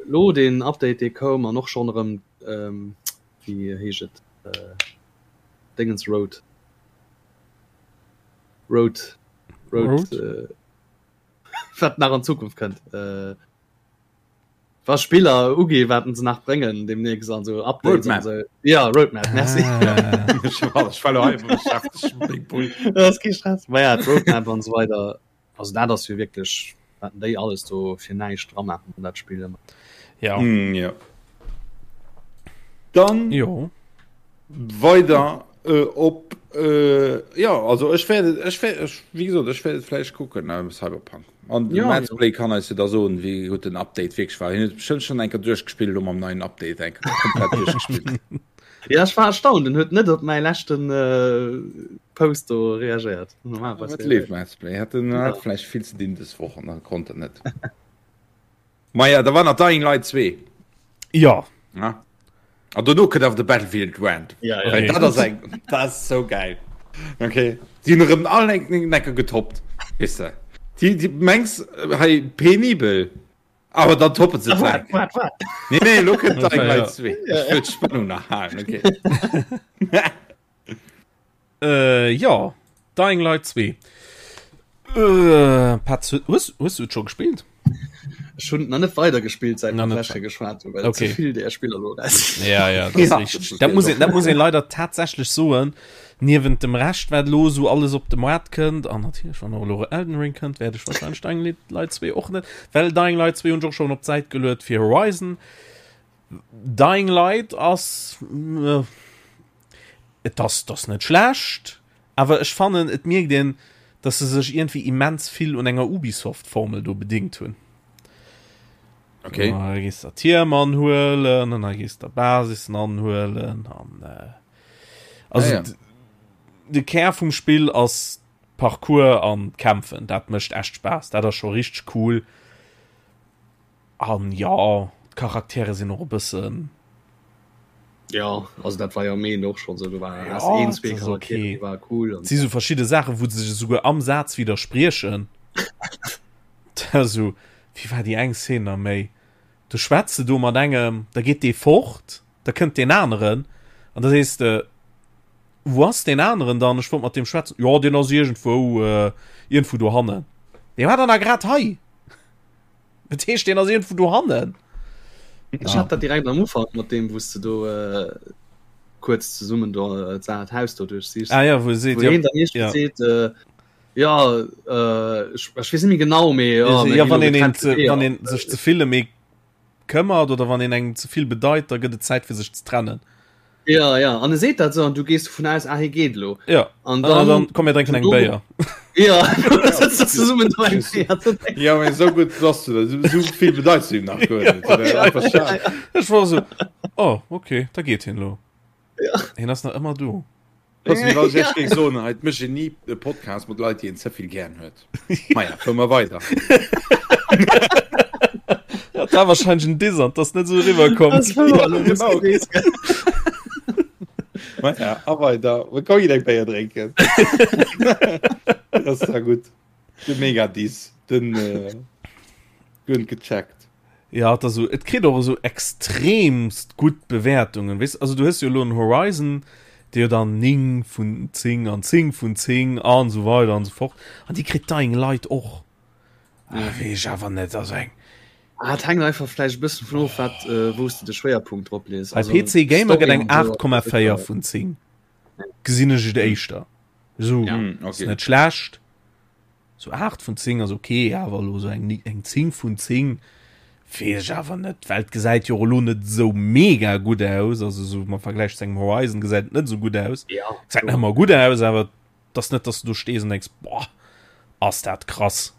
Lo den Update dee koum an och schonn erëm ähm, wéi heescht et äh, Dingens Road Road Road, Road? Äh, wat nach an Zukunft kënnt. Äh, was Spiller ugi warten se nach bréngen demnächst an so Updates Roadmap. an so. Ja Roadmap merci. Ah. Ech war ech war lo einfach beschäftegt mit Big Bull. Das ist kein Stress. Ma ja, d'Roadmap an so weiter. Also dat ass jo wierklech wat déi alles do fir näischt dra maachen an dat Spill ëmmer. Ja. Mm, ja. Dann Jo. weider äh, op äh, ja also ech werde ech werde ech, wie gesagt ech werde vläicht kucken äh, Cyberpunk an Ja, ja, Play kann eis jo da soen wéi gutt den Update wierklech war. Hien huet bestimmt schon eng Kéier duerchgespillt elo mam neien Update eng Kéier komplett duerchgespillt. Ja, ech war erstaunt, en huet net op mäi leschten äh, Post do reagéiert. Normalerweis Wat leeft Mads Play hat den hat vläicht vill ze dinn des Woch an dann konnt en net. Maja, da war nach Dying Light 2. Ja. Ja. An dono kënnt awer de Battlefield Rand. Ja, ja. Well dat ass eng, dat ass so geil. Okay. Déi hunn erëm all eng Necker getoppt. Weess de. Déi, déi mengs hei penibel. Awer dann toppen se Wat, d'Werk. wat, wat? Nee, nee, lo kënnt Dying Ja. Light 2. Ech wëll d'Spannung nach halen, okay. Äh, ja. Dying Light 2. Äh, Patz, hues, hues du et scho gespillt? Ech hunn nach net weider gespillt seit Nach mer net d'lescht Kéier geschwat hunn, well Okay. ze vill där Spiller elo raus. Ja, ja, dat ass Ja. richtig. Dat muss een, dat muss een leider tatsächlech soen. Niewent dem Rescht, wat elo esou alles op de Moart kënnt, an natierlech, wann och elo Elden Ring kënnt, wäert ech wahrscheinlech Dying Light 2 och net, well Dying Light 2 hunn ech och schonn op d'Säit geluet fir Horizon. Dying Light ass äh, et ass, et ass net schlecht, awer ech fannen, et mierkt een, dass se sech iergendwéi immens vill un enger Ubisoft-Formel do bedingt hunn. Okay. Da gees der Tierm anhuelen an da gees der Basissen anhuelen an äh, also Ja, ja. de Kär vum Spill ass. Parcours an d'Kämpfen, dat mécht echt Spaass, dat ass scho richteg cool. An jo, d'Charaktere sinn och e bëssen. Jo, also dat war jo am eent och schonn esou, do war ja, een, zwee Charaktere, okay. déi ware cool. Et si sou verschidde Saachen, wou se sech esouguer am Saz widderspriechen. Esou, wéi war déi eng Szene nach méi? Du schwätz de do mat engem, da geet dee fort, da kënnt deen aneren an da sees de, Wou ass deen aneren dann? Ech wollt mat deem schwätzen. Jo, deen ass iergendwou, äh, iergendwou dohannen. Dee war dann a grad hei. Dat heescht, deen ass iergendwou dohannen. Ech hat dat direkt am Ufank mat deem, wou s de do äh, kuerz zesummen do äh, d'Haus do duerchsichs. Ah ja, wou e seet, wou hien dann iergendwéi ja. seet, äh, Ja, äh, ech, ech weess net méi genau, mee ja, mir ja, wann een, een ze, wann een sech ze vill ëm ee këmmert oder wann een engem ze vill bedeit, da gëtt et Zäit fir sech ze trennen. Ja, ja, an e seet dat sou an du gees dovun aus, ah, hie geet elo. Ja, an dann, an dann komm mir drénken eng Béier. Ja, zesummen do eng Béier ze drénken. Ja, mee sou gutt bass du da, sou, sou vill bedeits du him nach guer net. Ja, ja, einfach schad. Ech war sou, oh, okay, da geet hien elo. Ja. Hien ass nach ëmmer do. Pass, wie was ich géif soen, hei mécht een ni e Podcast mat Leit, déi een ze vill gären huet. Maja, fuere mer weider. Ja, dat war wahrscheinlech en Diss an 't ass net esou eriwwer komm. Das war elo Genau. gewesen. Maja, a weider. Mir kommen eng Béier drénken. Das ass ja gutt. De Mega-Diss, den äh, guer net gecheckt. Ja, et ass esou, et kritt och esou extremst gutt Bewäertungen, weess, also du hues jo elo en Horizon, dee jo dann 9 vun 10 an 10 vun 10 an esou weider an esou fort, an déi kritt Dying Light och. Ah, weess ech awer net, also eng. Ah, et hänkt einfach vläicht e bëssen vun of, wat, wou s de de Schwéierpunkt drop lees. Bei PC Gamer gëtt eng 8,4 vun 10, gesinn ech et éischter esou, ass net schlecht. Sou 8 vun 10 ass ok, awer elo sou eng eng 10 vun 10 weess ech awer net, well et gesäit jo och elo net sou mega gutt aus, also sou am Vergläich zu engem Horizon gesäit et net sou gutt aus. Ja. Gesäit nach ëmmer gutt aus, awer et ass net, dass du do stees an denks, boah, ass dat krass.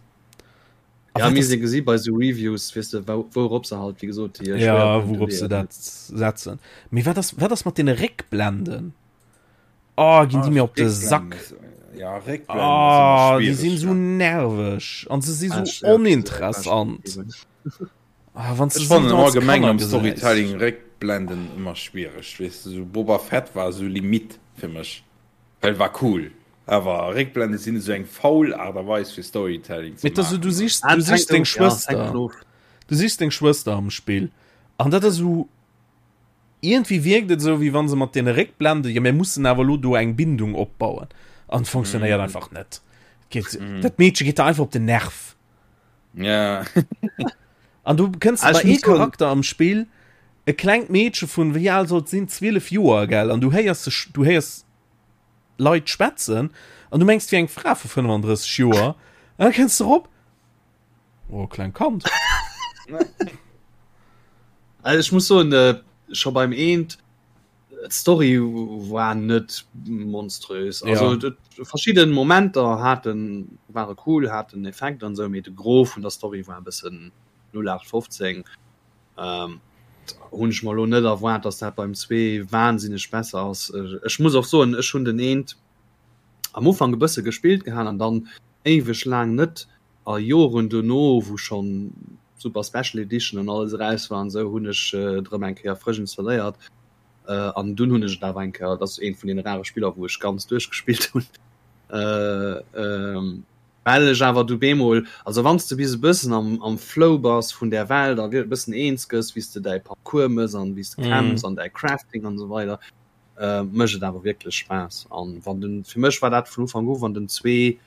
A Ja, wat mir ass si gesi bei sou Reviews, weess de, wou wourop se halt, wéi gesot, déi Ja, Schwéierpunkte wourop se leeën. dat setzen. Mee wat ass wat ass mat deene Réckblenden? Oh, ginn déi mir op de Sack. Ja, oh, déi sinn so nerveg an se si so ah, oninteressant. Ah, wann se fannen allgemeng am Storytelling Réckblenden ëmmer schwiereg. Weess du, so Boba Fett war so Limit fir mech. Well war cool. Awer Réckblende sinn esou eng faul Aart a Weis fir Storytelling ze maachen. Du sichs, du sichs deng Schwëster. Du sichs deng Schwëster am Spill. An dat ass esou Iergendwéi wierkt et esou, wéi wann se mat deene Réckblende, jo mir mussen awer elo do eng Bindung opbauen, an et funktionéiert mm. einfach net. Geet, mm. Dat Meedche geet der einfach op den Nerv. Ja. An du kënns bei ee Charakter am Spill, e klengt Meedche vun, wéi al sollt sinn, 12 Joer, gell, an du héiers, du héiers Leit schwätzen an du mengs, 't wier eng Fra vu 35 Joer, an da kënns de rop, Oh, kleng Kand. Also ech muss soen, äh, scho beim eent d'Story war net monströs. Also ja. verschidden Momenter haten ware cool, haten Effekt an sou, mee de Gros vun der Story war e bëssen 0815. Ähm, hunn ech mer lo net erwaart, dass dat beim 2 wahnsinneg besser ass. Ech muss och soen, ech hunn den eent am Ufank e bësse gespillt gehat an dann éiweg laang net a Joren dono wou schonn Super Special Edition an alles eraus war an esou hunn ech et erëm eng Kéier frësch installéiert an dunn hunn ech et awer eng Kéier, dat ass eent vun deene rare Spiller wou ech ganz duerchgespillt hunn, well ech awer du bemol, also wann s de bis e bëssen am am Flow bass vun där Welt a e bëssen eens gëss wéi s de däi Parcours mëss an wéi s de kämpfs an däi Crafting an esou weider, mécht et awer wierklech Spaass an wann den, fir mech war dat vun Ufank u, wann den 2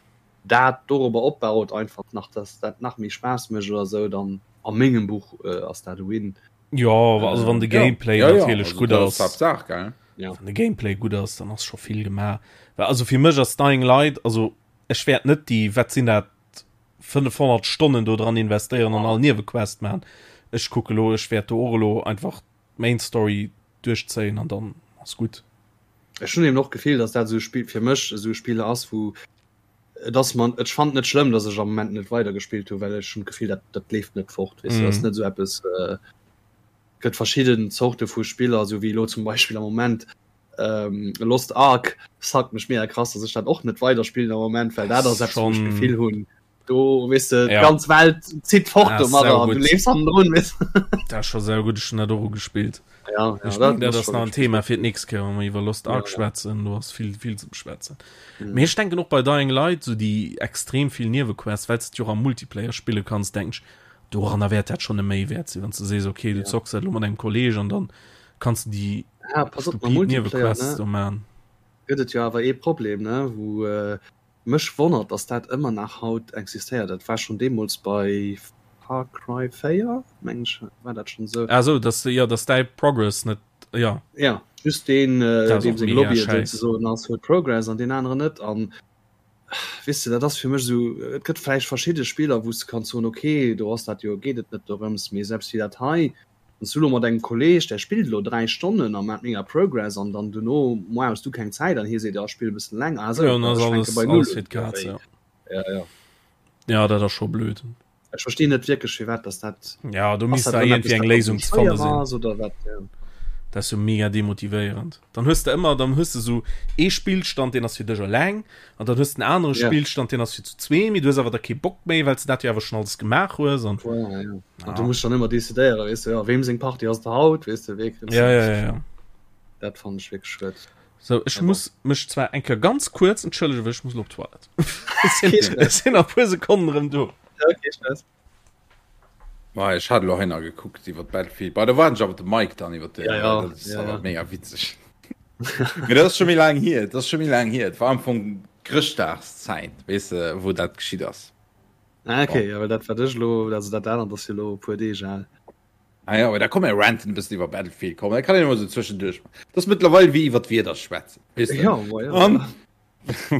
dat dorobber opbaut einfach nach, dass dat nach méi Spaass mécht oder sou, dann a mengem Buch ass dat e Win. Jo, also wann de Gameplay ja, natierlech ja, gutt ass. Haaptsaach, gell? Ja. Wann de Gameplay gutt ass, dann ass scho vill gemaach. Well also fir mech ass Dying Light, also ech wäert net déi, wat sinn dat, 500 Stonnen do dran investéieren an all Niewequest maachen. Ech kucke lo, ech wäert do och elo einfach d'Main Story duerchzéien an dann ass gutt. Ech hunn eben och d'Gefill, dass dat esou e Spill fir mech esou e Spill ass, wou et ass man ech fannen et net schlëmm, dass ech am Moment net weider gespillt hunn, well ech hunn d'Gefill, dat dat leeft net fort, weess de, dat ass net esou eppes. Et gëtt verschidden Zorte vu Spiller, esou wéi elo zum Beispill am Moment. Ähm, Lost Ark sagt mech mega krass, dass ech dat och net weiderspillen am Moment, well dat ass eppes, wou ech d'Gefill hunn, do weess de, Ja. d'ganz Welt zitt fort Ah, domadder an du saugutt. leefs hannendrun, weess de. Dat ass scho saugutt, ech hunn dat och ugespillt. Ja, ja, Ech dat mengen, dat ass ass scho nach en richtig Thema gutt. fir d'nächst Kéier, wa mer iwwer Lost Ja, Ark ja. schwätzen. Do ass vill, vill ze beschwätzen. Mhm. Mee ech denken och bei Dying Light, sou déi extrem vill Niewequests, well s de et jo och am Multiplayer spille kanns, denken ech, doranner wäert dat schonn e Méiwäert sinn, wann s de sees, okay, du Ja. zocks dat elo mat engem Kolleeg an dann kanns de déi Ja, pass op, mam stupid Multiplayer, Niewequests ne, do man. gëtt et jo awer ee Problem, ne, wou äh, mech wonnert, dass dat ëmmer nach haut existéiert. Dat war schonn deemools bei Far Cry 4, meng ech, war dat schonn esou. Ah sou, dass de, jo, dass däi Progress net, jo. Ja, just deen, äh, Dat ass deem och seng mega Lobby et schäiss. souzesoen ass, huet Progress an deen aneren net. An weess de, dat ass fir mech esou, et gëtt vläicht verschidde Spiller, wou s de kanns soen, okay, do ass dat jo, geet et net dorëms, mee selbst wéi dat hei, Wann s du elo mat engem Kolleg, där spillt elo 3 Stonnen a maacht mega Progress an dann dono moar hues du keng Zäit an hie seet, jo ech spille e bëssen länger, ah sou, Ja, dann ass ech fänke alles, bei Null alles un. fir d'Kaz, ja. Ja, ja. Ja, dat ass scho blöd. Ech verstinn net wierklech firwat dass dat, Ja, do ass misst dat da erëm iergendwéi eppes eng dat dann Léisung méi ze fanne schwéier sinn. ass oder wat, ja. Dat ass jo mega demotivéierend. Dann hues de ëmmer, dann hues de sou ee Spillstand, deen ass fir dech eleng, an dann hues de en anere Ja. Spillstand, deen ass fir zu zwee, mee du hues awer da kee Bock méi, well s de dat jo awer schonn alles gemaach hues an. Voilà, ja. An du Ja. muss dann ëmmer decidéieren, weess de, ja, weem seng Partie ass et haut, weess de, wee kritt Ja, se. ja, ja, ja. Dat fannen ech wierklech schued. So, ech Mee bon. muss mech zwar eng Kéier ganz kuerz entschëllegen, well ech muss elo op d'Toilette. Ech sinn, Kee Stress. ech sinn a puer Sekonnen erëm do. Ja, kee Stress. Ma ech hat elo hei nach gekuckt iwwer Battlefield. Bei da waren ech awer de Mike dann iwwer den Ja, ja, dat ass ja, awer ja. mega witzeg. Mee dat ass scho méi laang hier, dat ass scho méi laang hier. Et war am Fong Chrëschtdagszäit, weess de, wou dat geschitt ass. Ah, okay, Bon. ja, well dat wat ech elo, also dat anert ass jo elo e puer Deeg al. Ah ja, aber da komm mir ranten e bëssen iwwer Battlefield, komm, dat kann een emol sou zwëschenduerch maachen. Dat ass mëttlerweil wéi iwwer d'Wieder schwätzen, weess de. Ja, ma ja. An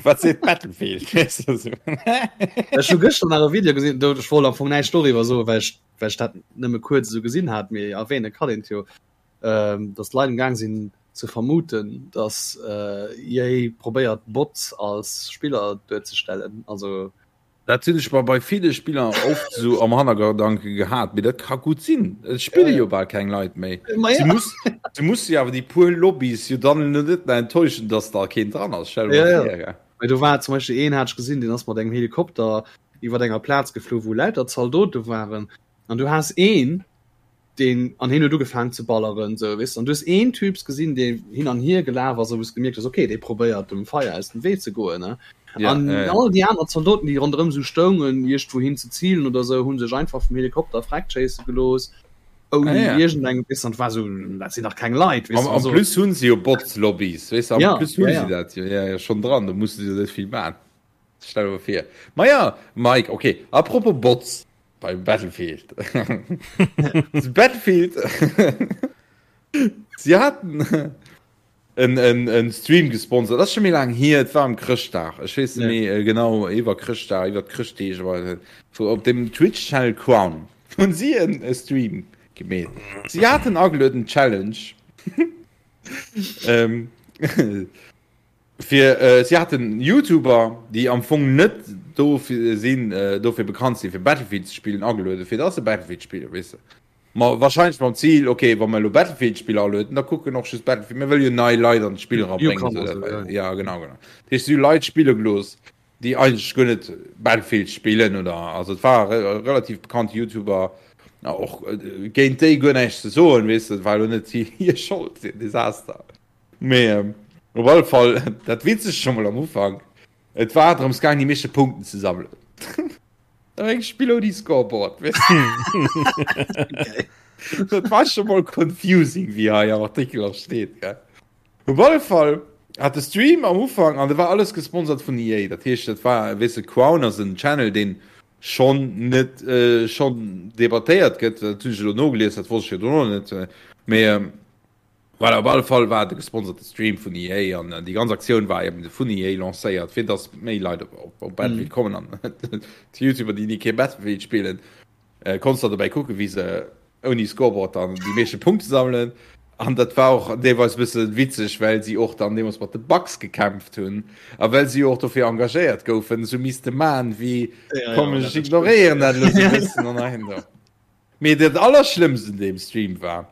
Wat seet Battlefield? Ech hu gëschter nach e Video gesinn, do ech wollt am Fong näischt doriwwer soen, well ech, well ech dat nëmme kuerz esou gesinn hat, mee erwähne kann een et jo, ähm, datt d'Leit am Gaang sinn ze vermuten, datt äh, EA probéiert Bots als Spiller duerzestellen. Also Dat hunn ech mer bei ville Spiller oft sou am Hannergedanke gehat, mee dat ka gutt sinn. Et spille jo bal keng Leit méi. Si muss, si musse jo awer déi puer Lobbys jo dann elo net mehr enttäuschen, dass da keen dran ass. Stell der Ja, mol ja. vir, gell. Mee do war zum Beispill een, hat ech gesinn, deen ass mat engem Helikopter iwwer enger Plaz geflu, wou lauter Zaldote waren. An du has een, deen an hien huet ugefaangen ze balleren sou weess de an du hues een Typs gesinn dee hin an hier gelaf ass a wou s gemierkt hues okay dee probéiert dem Feier aus dem Wee ze goen ne Ja, an ja, ja. all déi aner Zaldoten déi ronderëm sou stoungen iergendwou hin ze zilen oder sou hu sech einfach vum Helikopter freck schéisse gelooss ouni Ah, ja. iergendeng weess an war sou dat sinn dach keng Leit weess Am, de am also plus hunn se jo Bots-Lobbys, weess de, am ja plus hunn ja se ja dat jo, ja, ja, schonn dran, do musse se jo net vill man. Stell der mol vir. Ma ja, Mike, okay, apropos Bots, Beim Battlefield. Battlefield. Sie hatten en, en, en Stream gesponsert. Das ist schon méi lang hier. Et war am Chrëschtdag. Ech weess net méi äh, genau iwwer Chrëschtdag, iwwer d'Chrëschtdeeg, aber wo op dem Twitch Channel Crown hunn sie en e Stream gemeet. Sie hatten agelueden Challenge. ähm, Fir si haten Youtuber, déi am Fong net dofir sinn, dofir bekannt sinn, fir Battlefield ze spillen, agelueden, fir dass se Battlefield spillen, weess de. Ma wahrscheinlech mam Zil, ok, wa mer elo Battlefield-Spiller alueden, da kucken och just Battlefield, mir wëlle jo nei Leit an d'Spill erabréngen, Newcomer, esou esou, dat, ja. ja, genau, genau. Dat heescht, si hu Leit spille gelooss, déi eigentlech guer net Battlefield spillen oder, also et war relativ bekannte Youtuber, och géint déi guer näischt ze soen, weess de, et war elo net hir Schold, hir Desaster. Mee op alle Fall, dat Witzegt scho mol am Ufank, et war drëms gaang, déi meeschte Punkten ze sammelen. Da war eng Spill ouni Scoreboard, weess de. Dat war scho mol confusing, wéi hei am Artikel och steet, gell. Op alle Fall hat de Stream am Ufank, an dat war alles gesponsert vun EA, dat heescht, dat war, weess de, Crown ass en Channel, deen schonn net, schonn debattéiert gëtt, dat hunn ech elo nogelies, dat wosst ech jo dono net, mee Voilà, op alle Fall war et e gesponserte Stream vun EA an déi ganz Aktioun war eben vun EA lancéiert, fir dass méi Leit op, op, op Battlefield mm. kommen an d'Youtuber, déi ni kee Battlefield spillen, äh, konntest da dobäi kucken, wéi se ouni Scoreboard dann déi meeschte Punkte sammelen. An dat war och deelweis e bësse witzeg, well si och dann deemools mat de Bugs gekämpft hunn a well si och dofir engagéiert goufen, sou misste man wéi ja, komm ja, ech ignoréieren dat elo sou e bëssen an dahinter. Mee dat allerschlëmmst un deem Stream war,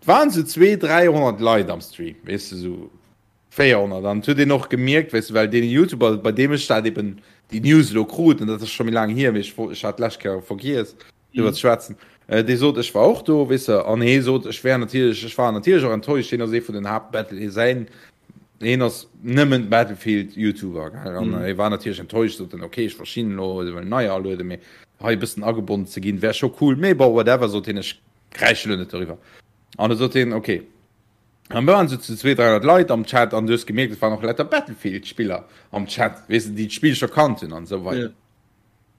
et waren sou 200, 300 Leit am Stream, weess de, sou. 400 an huet een och gemierkt weess de well deen Youtuber bei deem ech dat eben déi News elo krut an dat ass scho méi laang hier mee ech ech hat d'lescht Kéier vergiess driwwer ze schwätzen dee sot ech war och do weess de an hee sot ech wär natierlech ech war natierlech och enttäuscht hien ass ee vun den Haapt Battle hie säin hien ass nëmmen Battlefield Youtuber gell an hie war natierlech enttäuscht sot en okay ech verstinn elo se wëllen neier alueden mee hei e bëssen agebonnen ze ginn wär scho cool mee bon whatever sot hien ech kräische elo net doriwwer an da sot hien okay An do waren sou zu 200, 300 Leit am Chat an du hues gemierkt, et waren och lauter Battlefield-Spiller am Chat, weess de, déi d'Spill scho kannt hunn an esou weider.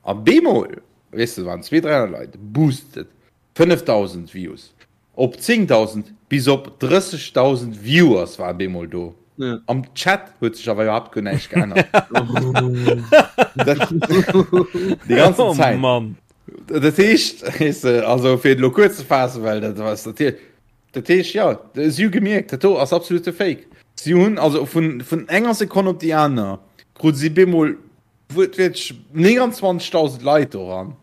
A bemol, weess de, waren 200, 300 Leit, boosted 5.000 Views op 10.000 bis op 30.000 Viewers waren bemol do. Am Chat huet sech awer iwwerhaapt guer näischt geännert. Déi ganzen Zäit. Oh Mann. Dat heescht, weess de, also fir et elo kuerz ze faassen, well dat ass natierlech, Dat heescht, jo, si hu gemierkt, dat do ass absolute Fake. Si hunn also vun, vun enger Sekonn op déi aner krute si bemol wuertwiertlech 29.000 Leit doran.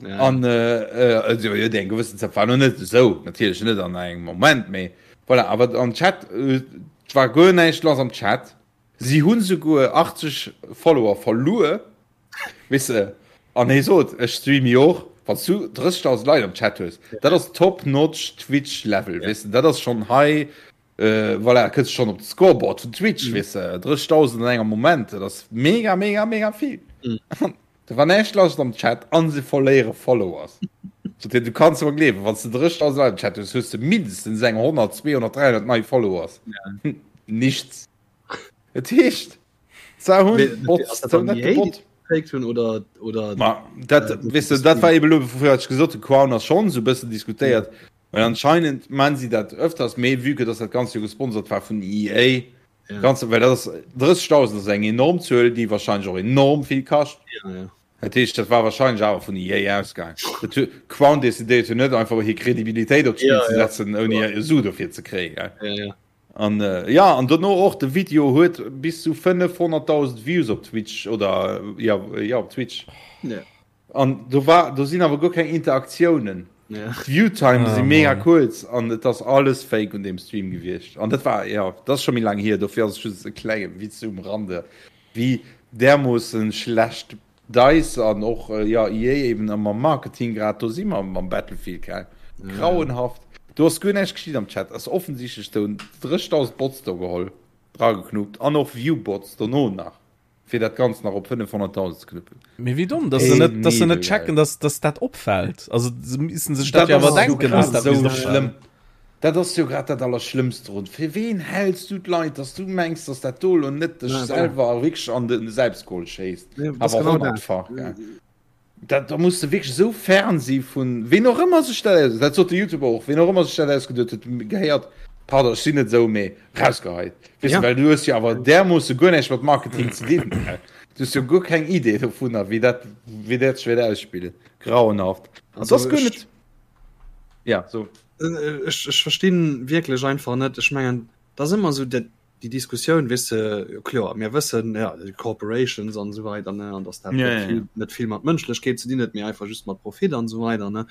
Ja. An äh, äh, also, jo, déi eng gewëssen Zäit war noch net esou, natierlech net an engem Moment, mee voilà, awer am Chat äh, war guer näischt lass am Chat. Si hunn souguer 80 Follower verluer. Weess de, an hie sot, ech streame jo och, wann s du 30.000 Leit am Chat hues, dat ass top notch Twitch Level, weess de, dat ass schonn hei, voilà, kënns schonn op de Scoreboard vun Twitch, weess de, 30.000 an engem Moment, dat ass mega, mega, mega vill. Do war näischt lass am Chat an se verléiere Followers. Sot hien, du kanns mer gleewen, wann s de 30.000 Leit am Chat hues, hues de mindestens eng 100, 200, 300 nei Followers. Nichts. Et heescht, se hunn Bots, se hunn net gebot. Gefaked hunn oder oder Ma dat äh, weess de, dat war eben elo, wofir ech gesot hunn, Crown ass schonn esou e bëssen diskutéiert, well anscheinend man si dat öfters, mee vue que dass dat Ganzt jo gesponsert war vun EA, Ja. Ganz, well dat ass 30.000 ass eng enorm Zuel, déi wahrscheinlech och enorm vill kascht. Ja, ja. Dat heescht, dat war wahrscheinlech awer vun EA ausgaang. Dat hu Crown decidéiert jo net einfach hir Kredibilitéit op d'Spill Ja, ze ja. setzen, ouni e Su dofir ze kréien. Gell? Ja, ja. An äh, ja, an dono och de Video huet bis zu 500.000 Views op Twitch oder ja, ja op Twitch. Ja. An do war do sinn awer guer keng Interaktiounen. Ja. D'Viewtime Ah, si mega Mann. kuerz an et ass alles fake un deem Stream gewiescht. An dat war ja, dat ass scho méi laang hier, dofir ass et just e klenge Witz um Rande, wéi därmoossen schlecht Dice an och ja EA eben am Marketing grad do si mam mam Battlefield gell. Grauenhaft. Do ass guer näischt geschitt am Chat. Ass offensichtlech do 30.000 Bots do geholl, drageknuppt an och Viewbots dono nach. Fir dat Ganzt nach op 500.000 ze knuppen. Mee wéi domm, dass se net, dass se net checken, dass, dass dat opfält. Also se missten sech dat jo awer denken, dass dat misst opfalen. Dat ass jo grad dat Allerschlëmmst drun. Fir ween häls du d'Leit, dass du mengs, dass dat do elo net dech selwer wierklech an de Selbstgol schéisst? Awer honnertfach, gell? Dat, da muss de wierklech esou fern si vun ween och ëmmer sech dat aus, dat sot de Youtuber och, ween och ëmmer sech dat ausgeduet huet, gehéiert, pardon, ech sinn net esou, mee rausgeheit. Weess de, Ja. well du hues jo awer därmoosse guer näischt mat Marketing ze dinn. Du hues jo guer keng Idee dovunner, wéi dat, wéi dat sech wäert ausspillen. Grauenhaft. An Also dat ass guer ech- net, ja, so. Ech, ech verstinn wierklech einfach net, ech mengen, dat ass ëmmer esou dat, déi Diskussioun, weess de, jo kloer, mir wëssen, ja, déi Corporations an esou weider, ne, an dass dat Ja, net ja, ja. vill, net vill mat Mënschlechkeet ze dinn huet, mee einfach just mat Profit an esou weider, ne.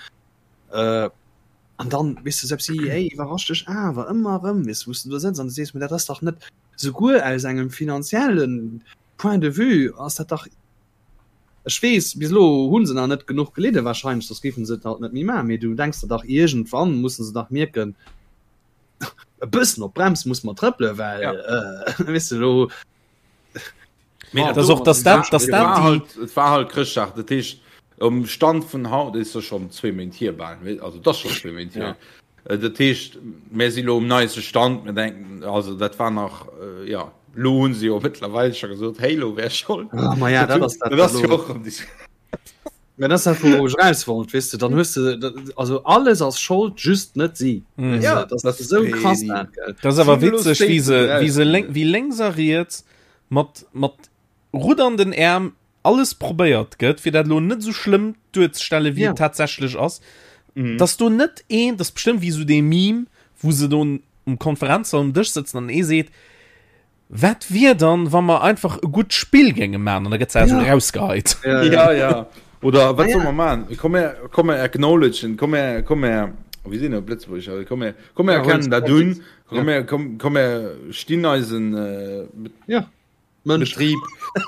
Äh, an dann, weess de, selbst EA iwwerrascht dech awer ëmmer erëm, weess de, wou s de do sëtz an du sees, mee dat ass dach net, souguer aus engem finanzielle Point de vue ass dat dach, ech weess, bis elo hu se nach net genuch gelidde wahrscheinlech, soss géife se et halt net méi maachen, mee du denks der dach, iergendwann musse se dach mierken, e bëssen op d'Brems muss mer trëppelen, well Ja. äh, weess de lo Mee Dat ass och, dass dat, dass Et dat war déi halt, et war halt Chrëschtdag, dat heescht um Stand vun haut is jo schon zwee Méint hier bal, wéi- also dat ass schon zwee Méint hier. Äh, Dat heescht mir si lo um neiste Stand, mir denken also dat war nach äh, ja lo hunn se jo mëttlerweil scho gesot Halo wär schold. Ah, ma ja, dat ass dat, dat ass lo. jo och am Dis Mä dat ass dat, wou ech raus wollt, weess de, dann hues de, dat, also alles ass Schold, just net si. Mm. Weess Ja, de, dat das ass esou krass Penny. dat, gell. Das ass awer Sinnlos witzeg, wéi se, Statement wéi se lénk, wéi lénks a riets mat, mat ruddernden Äerm alles probéiert gëtt, fir dat elo net esou schlëmm duerzestellen, wéi Ja. et tatsächlech ass. Mhm. Dass do net een, das bestimmt wéi esou dee Meme, wou se do um Konferenzsall um Dësch sëtzen an ee seet, Wat wier dann, wa mer einfach e gutt Spill géinge man? An da gëtt se also Ja. rausgeheit. Ja, Ja, ja. Oder wat Ah, soll ja. man machen? Komm her, komm her acknowledgen, komm her, komm her. Wéi sinn op Lëtzebuergesch? Komm mir, komm mir erkennen dat un. Komm mir, komm, komm mir stinn eisen äh, ja. Mënsch. Betrieb,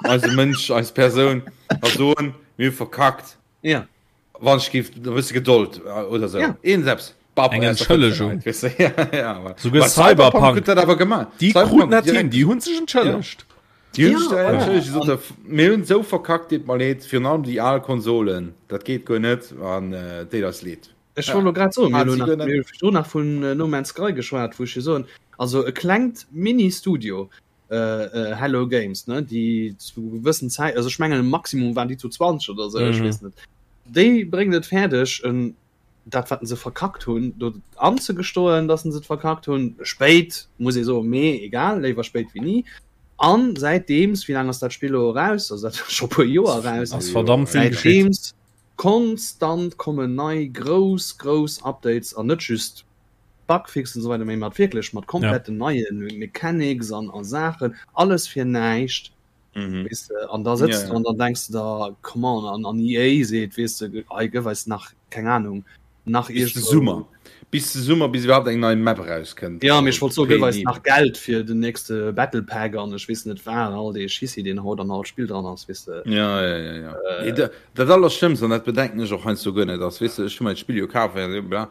eise Mënsch, eis Persoun a soen, mir hu verkackt. Ja. Wann ech géif e bësse Gedold äh, oder sou. Ja. Een selbst. Bab, Eng aus der Entschëllegung. Fëtzenheit, weess de. Ja, ja, aber- Souguer Bei Cyberpunk. Cyberpunk huet dat awer gemaach. Déi Cyberpunk kruten dat hin, direkt. déi hunn sech entschëllegt. Déi hunn Ja, sech da voilà. entschëllegt, déi soten, Mir hunn esou verkackt, deet mer leed, virun allem déi al Konsolen, dat geet guer net an äh, deet eis leed. Ech wollt lo grad soen, mir Hat hunn si nach, guer net. mir hu virdrun nach vun äh, No Man's Sky geschwat, wou ech jo soen, also e klengt Mini-Studio, äh, äh, Hello Games, ne, déi zu gewëssen Zäit, also ech mengen Maximum waren déi zu 20 oder sou, ech Mhm. weess net, déi bréngen et fäerdeg, en, dat wat se verkackt hunn, do anzegestoen, dass se et verkackt hunn, spéit, muss ee soen, mee egal, léiwer spéit wéi ni. An säitdeems, wéi laang ass dat Spill elo eraus? Also dat ass scho e puer Joer eraus. Ass verdammt vill geschitt. Säitdeems konstant kommen nei grouss, grouss Updates an net just Bugfixen an esou weider, mee mat wierklech mat kompletten neie Mechanics an a Saachen, alles fir näischt, weess de. An da sëtz du an dann denks de der, come on, an an EA seet, weess de, hei gëff eis nach, keng Ahnung, nach Bis de iergendwou. Summer. Bis de Summer, bis iwwerhaapt eng nei Map erauskënnt. Jo, mee ech wollt soen, gëff eis nach Geld fir den nächste Battle Pack an ech weess net wat, all dee Schissi, deen haut an all Spill dran ass, weess de. Ja, ja, ja, ja. Nee, dat, dat Allerschlëmmst, an dat bedenken ech och heiansdo guer net, ass, weess de, ech hu mer d'Spill jo kaf, bla,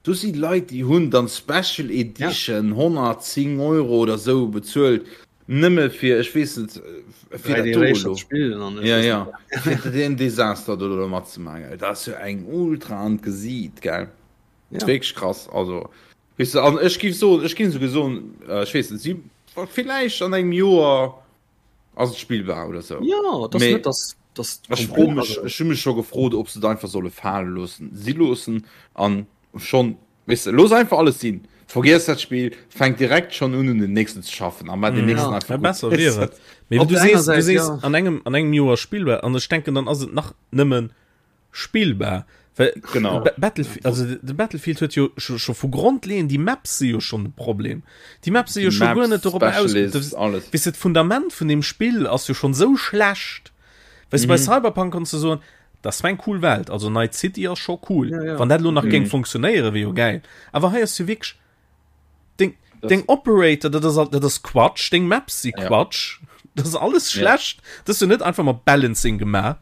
Do si Leit, déi hunn dann Special Edition 110 Euro oder sou bezuelt, nëmme fir, ech weess net, fir dat do elo. Ja, ja, fir deen Desaster do elo matzemaachen, gell. Dat ass jo eng ultra an d'Gesiit, gell. Ja. Wierklech krass, also, weess de, an ech géif soen, ech géing souguer soen, ech weess net, si villäicht an engem Joer ass et spillbar oder sou. Ja, dat ass net, dass, dass Ech fro mech, ech hu mech scho gefrot, ob se et einfach solle fale loossen, si loossen an schonn, weess de, looss einfach alles sinn, vergiess dat Spill, fänk direkt schonn un un den nächsten ze schaffen a maach deen nächsten Ja, einfach gutt. besser wier et. Mee Op du der enger sees, du Säit, sees ja. an engem, an engem Joer spillbar an ech denken, dann ass et nach nëmmen spillbar. Well Genau. Ba- Battlefield, also de Battlefield huet jo scho, scho vu Grondleeën, déi Maps si jo schonn de Problem. Déi Maps si jo scho guer net dorop aus. Specialists, alles. Weess de, d'Fundament vun dem Spill ass jo schonn sou schlecht. Weess de, bei Cyberpunk konns du soen, dat war eng cool Welt, also Night City ass scho cool. Ja, ja. Wann dat elo nach géing funktionéieren, wier jo gäil. Awer hei ass jo wierklech Deng, deng Operator, dat ass, dat ass Quatsch, deng Maps si Quatsch, ja. dat ass alles schlecht. Ja. Dat ass jo net einfach mat Balancing gemaach.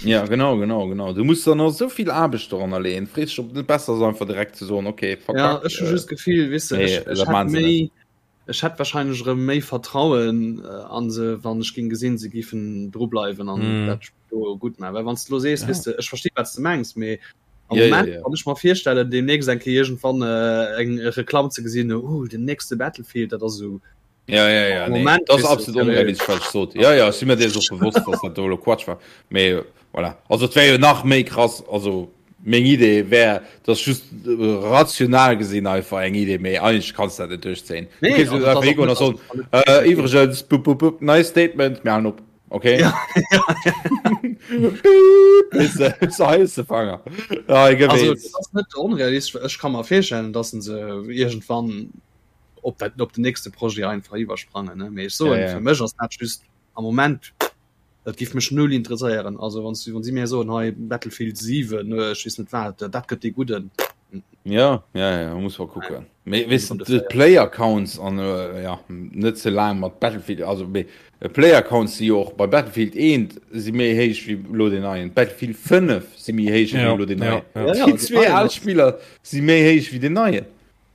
Ja, genau, genau, genau. Du musst dann noch so viel Aarbecht doranner leeën. Frees dich, ob net besser ass, einfach direkt ze soen, okay, verkackt. Ja, ech hu just d'Gefill, weess de, ech, ech hätt méi, ech hätt wahrscheinlech erëm méi Vertrauen äh, an se, wann ech ging gesinn, se giffen dru bleiwen an mm. dat do gutt maachen. Well wann s du lo sees, ja. weess de, ech versti wat s du mengs, mee Am Ja, ja, Moment, ja. wann ech mer virstellen, demnächst eng Kéier iergendwann äh, eng Reklamm ze gesinn, uh, den nächste Battlefield, dat ass esou. Ja, ja, ja, Am nee. Moment Dat ass weess du, absolut onrealistesch, wat ech sot. Ja, ja, ech si mir dees och bewosst, dass dat do elo Quatsch war. Mee voilà. Also et wär jo nach méi krass, also meng Idee wär, dass just äh, rational gesinn einfach eng Idee, mee eigentlech kanns du dat net duerchzéien. Du Nee, kéinst also jo dat einfach ass och higoen a net, soen, also dat äh, iwwregens, bup, bup, bup, neist Statement, mir halen op. Okay. Ja, Piep, so heiß de Fanger. Ja, ich Also, wees. das ass net onrealistesch, well ech ka mer virstellen, dass se iergendwann op dat op den nächste Projet einfach iwwersprangen, ne? Mee ech soen, Ja, ja. fir mech ass dat just am Moment, dat giff mech null interesséieren. Also wann wann si mir soen, hei Battlefield 7, ech weess net wat, dat gëtt dee gudden. Ja, ja, ja, muss mal kucken. Mee weess de, de Player Counts an äh, ja, net ze laang mat Battlefield, also mee äh, Player Counts si jo och bei Battlefield 1 si méi héich wéi lo den neien. Battlefield 5 si méi héich wéi Ja, lo den ja, neien. ja. Ja, ja, Déi den zwee neien al ass- Spiller si méi héich wéi den neien.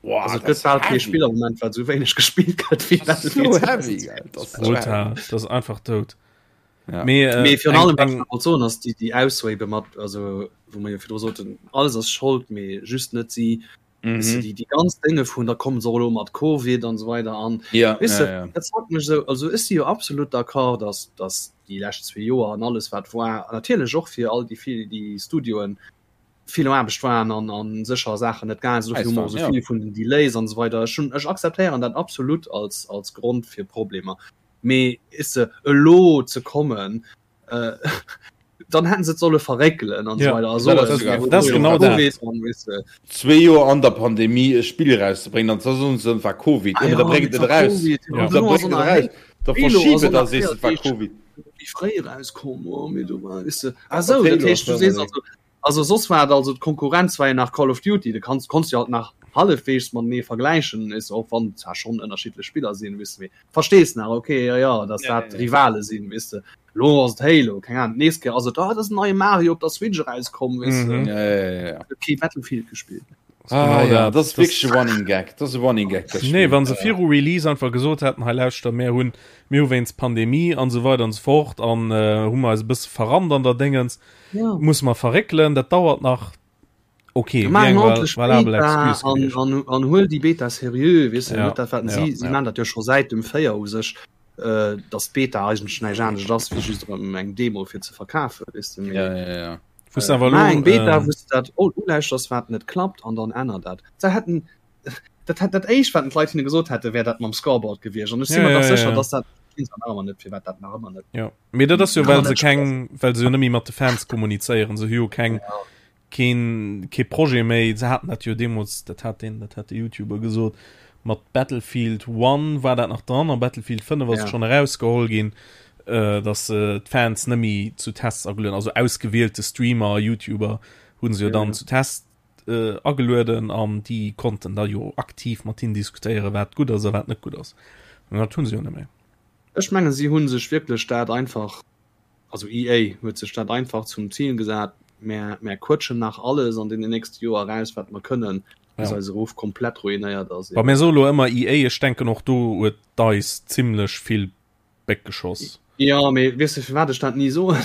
Wow, Also et dat gëtt ass bal kee heavy. Spill am Moment, wat esou wéineg gespillt gëtt wéi Das ass so Battlefield heavy, gell. Das ass so heavy. Brutal, dat ass einfach dout. Ja. Mee, äh, Mee virun eng, allem, wat eng, ech wollt soen, ass déi, déi Aussoe ebe mat, also wou mer jo virdru soten, alles ass Schold, mee just net si. Weess de, Mhm. déi, déi ganz Dénge vun, da kommen se och elo mat Covid an esou weider an Ja, weess ja, de, ja. dat fuckt mech esou. Also ech si jo absolut d'accord, dass, dass déi lescht zwee Joer an alles wat war, natierlech och fir all déi vill, déi Studioen vill Aarbecht waren an, an sécher Saachen net gaange sinn, dofir hu mer och esou Ja. vill vun den Delays an esou weider. Ech hunn, ech akzeptéieren dat absolut als, als Grond fir Problemer. Mee weess de, elo ze kommen, äh, dann hätten se et solle verréckelen an Ja. so weiter. Also, Ja, dat ass äh, dat ass genau dat. Covid an, weess de. Zwee Joer an der Pandemie e Spill erauszebréngen, an da soen se, et war Covid. Ah Ja, ja, da bréngt et et war eraus. Covid. Ja. An Da duerno ass bréngt och et nach eraus. Da Halo ass verschib och et a nach sees, et war véier Covid. méi fréi erauskomm, oh, mee du war, weess de. Ah sou, Halo dat heescht, du ass sees war also. Also soss war et also d'Konkurrenz war jo nach Call of Duty, du kanns konns jo halt nach hallefweegs matenee vergläichen, is och wann zwar schonn ënnerschiddlech Spiller sinn, weess de, mee verstees nach, okay, jo jo, dass dat Rivale sinn, weess de. Lo ass et Halo, keng Ahnung, d'nächst Kéier ass et, ah, et ass en neie Mario op der Switch erauskomm, weess de. Ja, ja, ja, ja. Huet kee Battlefield gespillt. Ah, Genau ja, dat. dat ass wierklech e Running Gag. Dat ass e Running Gag, dat Nee, Spill. wann se viru Release einfach gesot hätten, hei lauschter, mär hunn, mir hu wéinst Pandemie an esou weider an esou fort an äh, hu mer eis e bësse verrannt an der Déngens, Ja. musse mer verréckelen, dat dauert nach. Okay, Maach wéi eng eng val ordentlich valabel Beta Excuse an, gewiescht. an, an huel déi Beta seriö, weess de, Ja, net dat wat ja, si, si ja. maan dat jo scho säit dem 4 u sech, äh, dass d'Beta eigentlech näischt anescht ass wéi just erëm eng Demo fir ze verkafen, weess de, mee Ja, ja, ja. Wous awer Maach elo, eng Beta, ähm, wou s de dat ulauschters, wat net klappt, an dann änner dat. Se hätten dat hätt dat éischt, wat d'Leit hinne gesot hätte, wär dat mam Scoreboard gewiescht. An ech si Ja, mer ja, dach ja, sécher, ja. dass dat weess nach ëmmer net, firwat dat nach ëmmer net. Ja. Mee dat ass jo, Nach ëmmer well se net keng, well se jo net méi mat de Fans kommunizéieren. Se hu jo keng, Ja. keen, kee Projet méi. Se haten dat jo deemools, dat hat deen, dat hat de YouTuber gesot, mat Battlefield 1 war dat nach dran, a Battlefield 5 ass Ja. et schonn erausgeholl ginn, äh, dass se d'Fans net méi zu Tests agelueden, also ausgewielte Streamer a YouTuber hu se jo Ja, dann ja. zu Tests äh, agelueden an déi konnten da jo aktiv mat hinnen diskutéieren, wat gutt ass a wat net gutt ass. An dat hu se jo net méi. Ech mengen, si hu sech wierklech dat einfach, also EA huet sech dat einfach zum Zil gesat, mär, mär quëtschen nach alles an deenen nächste Joer eraus, wat mer kënnen, bis Ja. eise Ruff komplett ruinéiert ass. Wa mir soe lo ëmmer EA, ech denken och do huet DICE zimlech vill Béck geschoss. Jo, mee weess de firwat ech dat ni soen?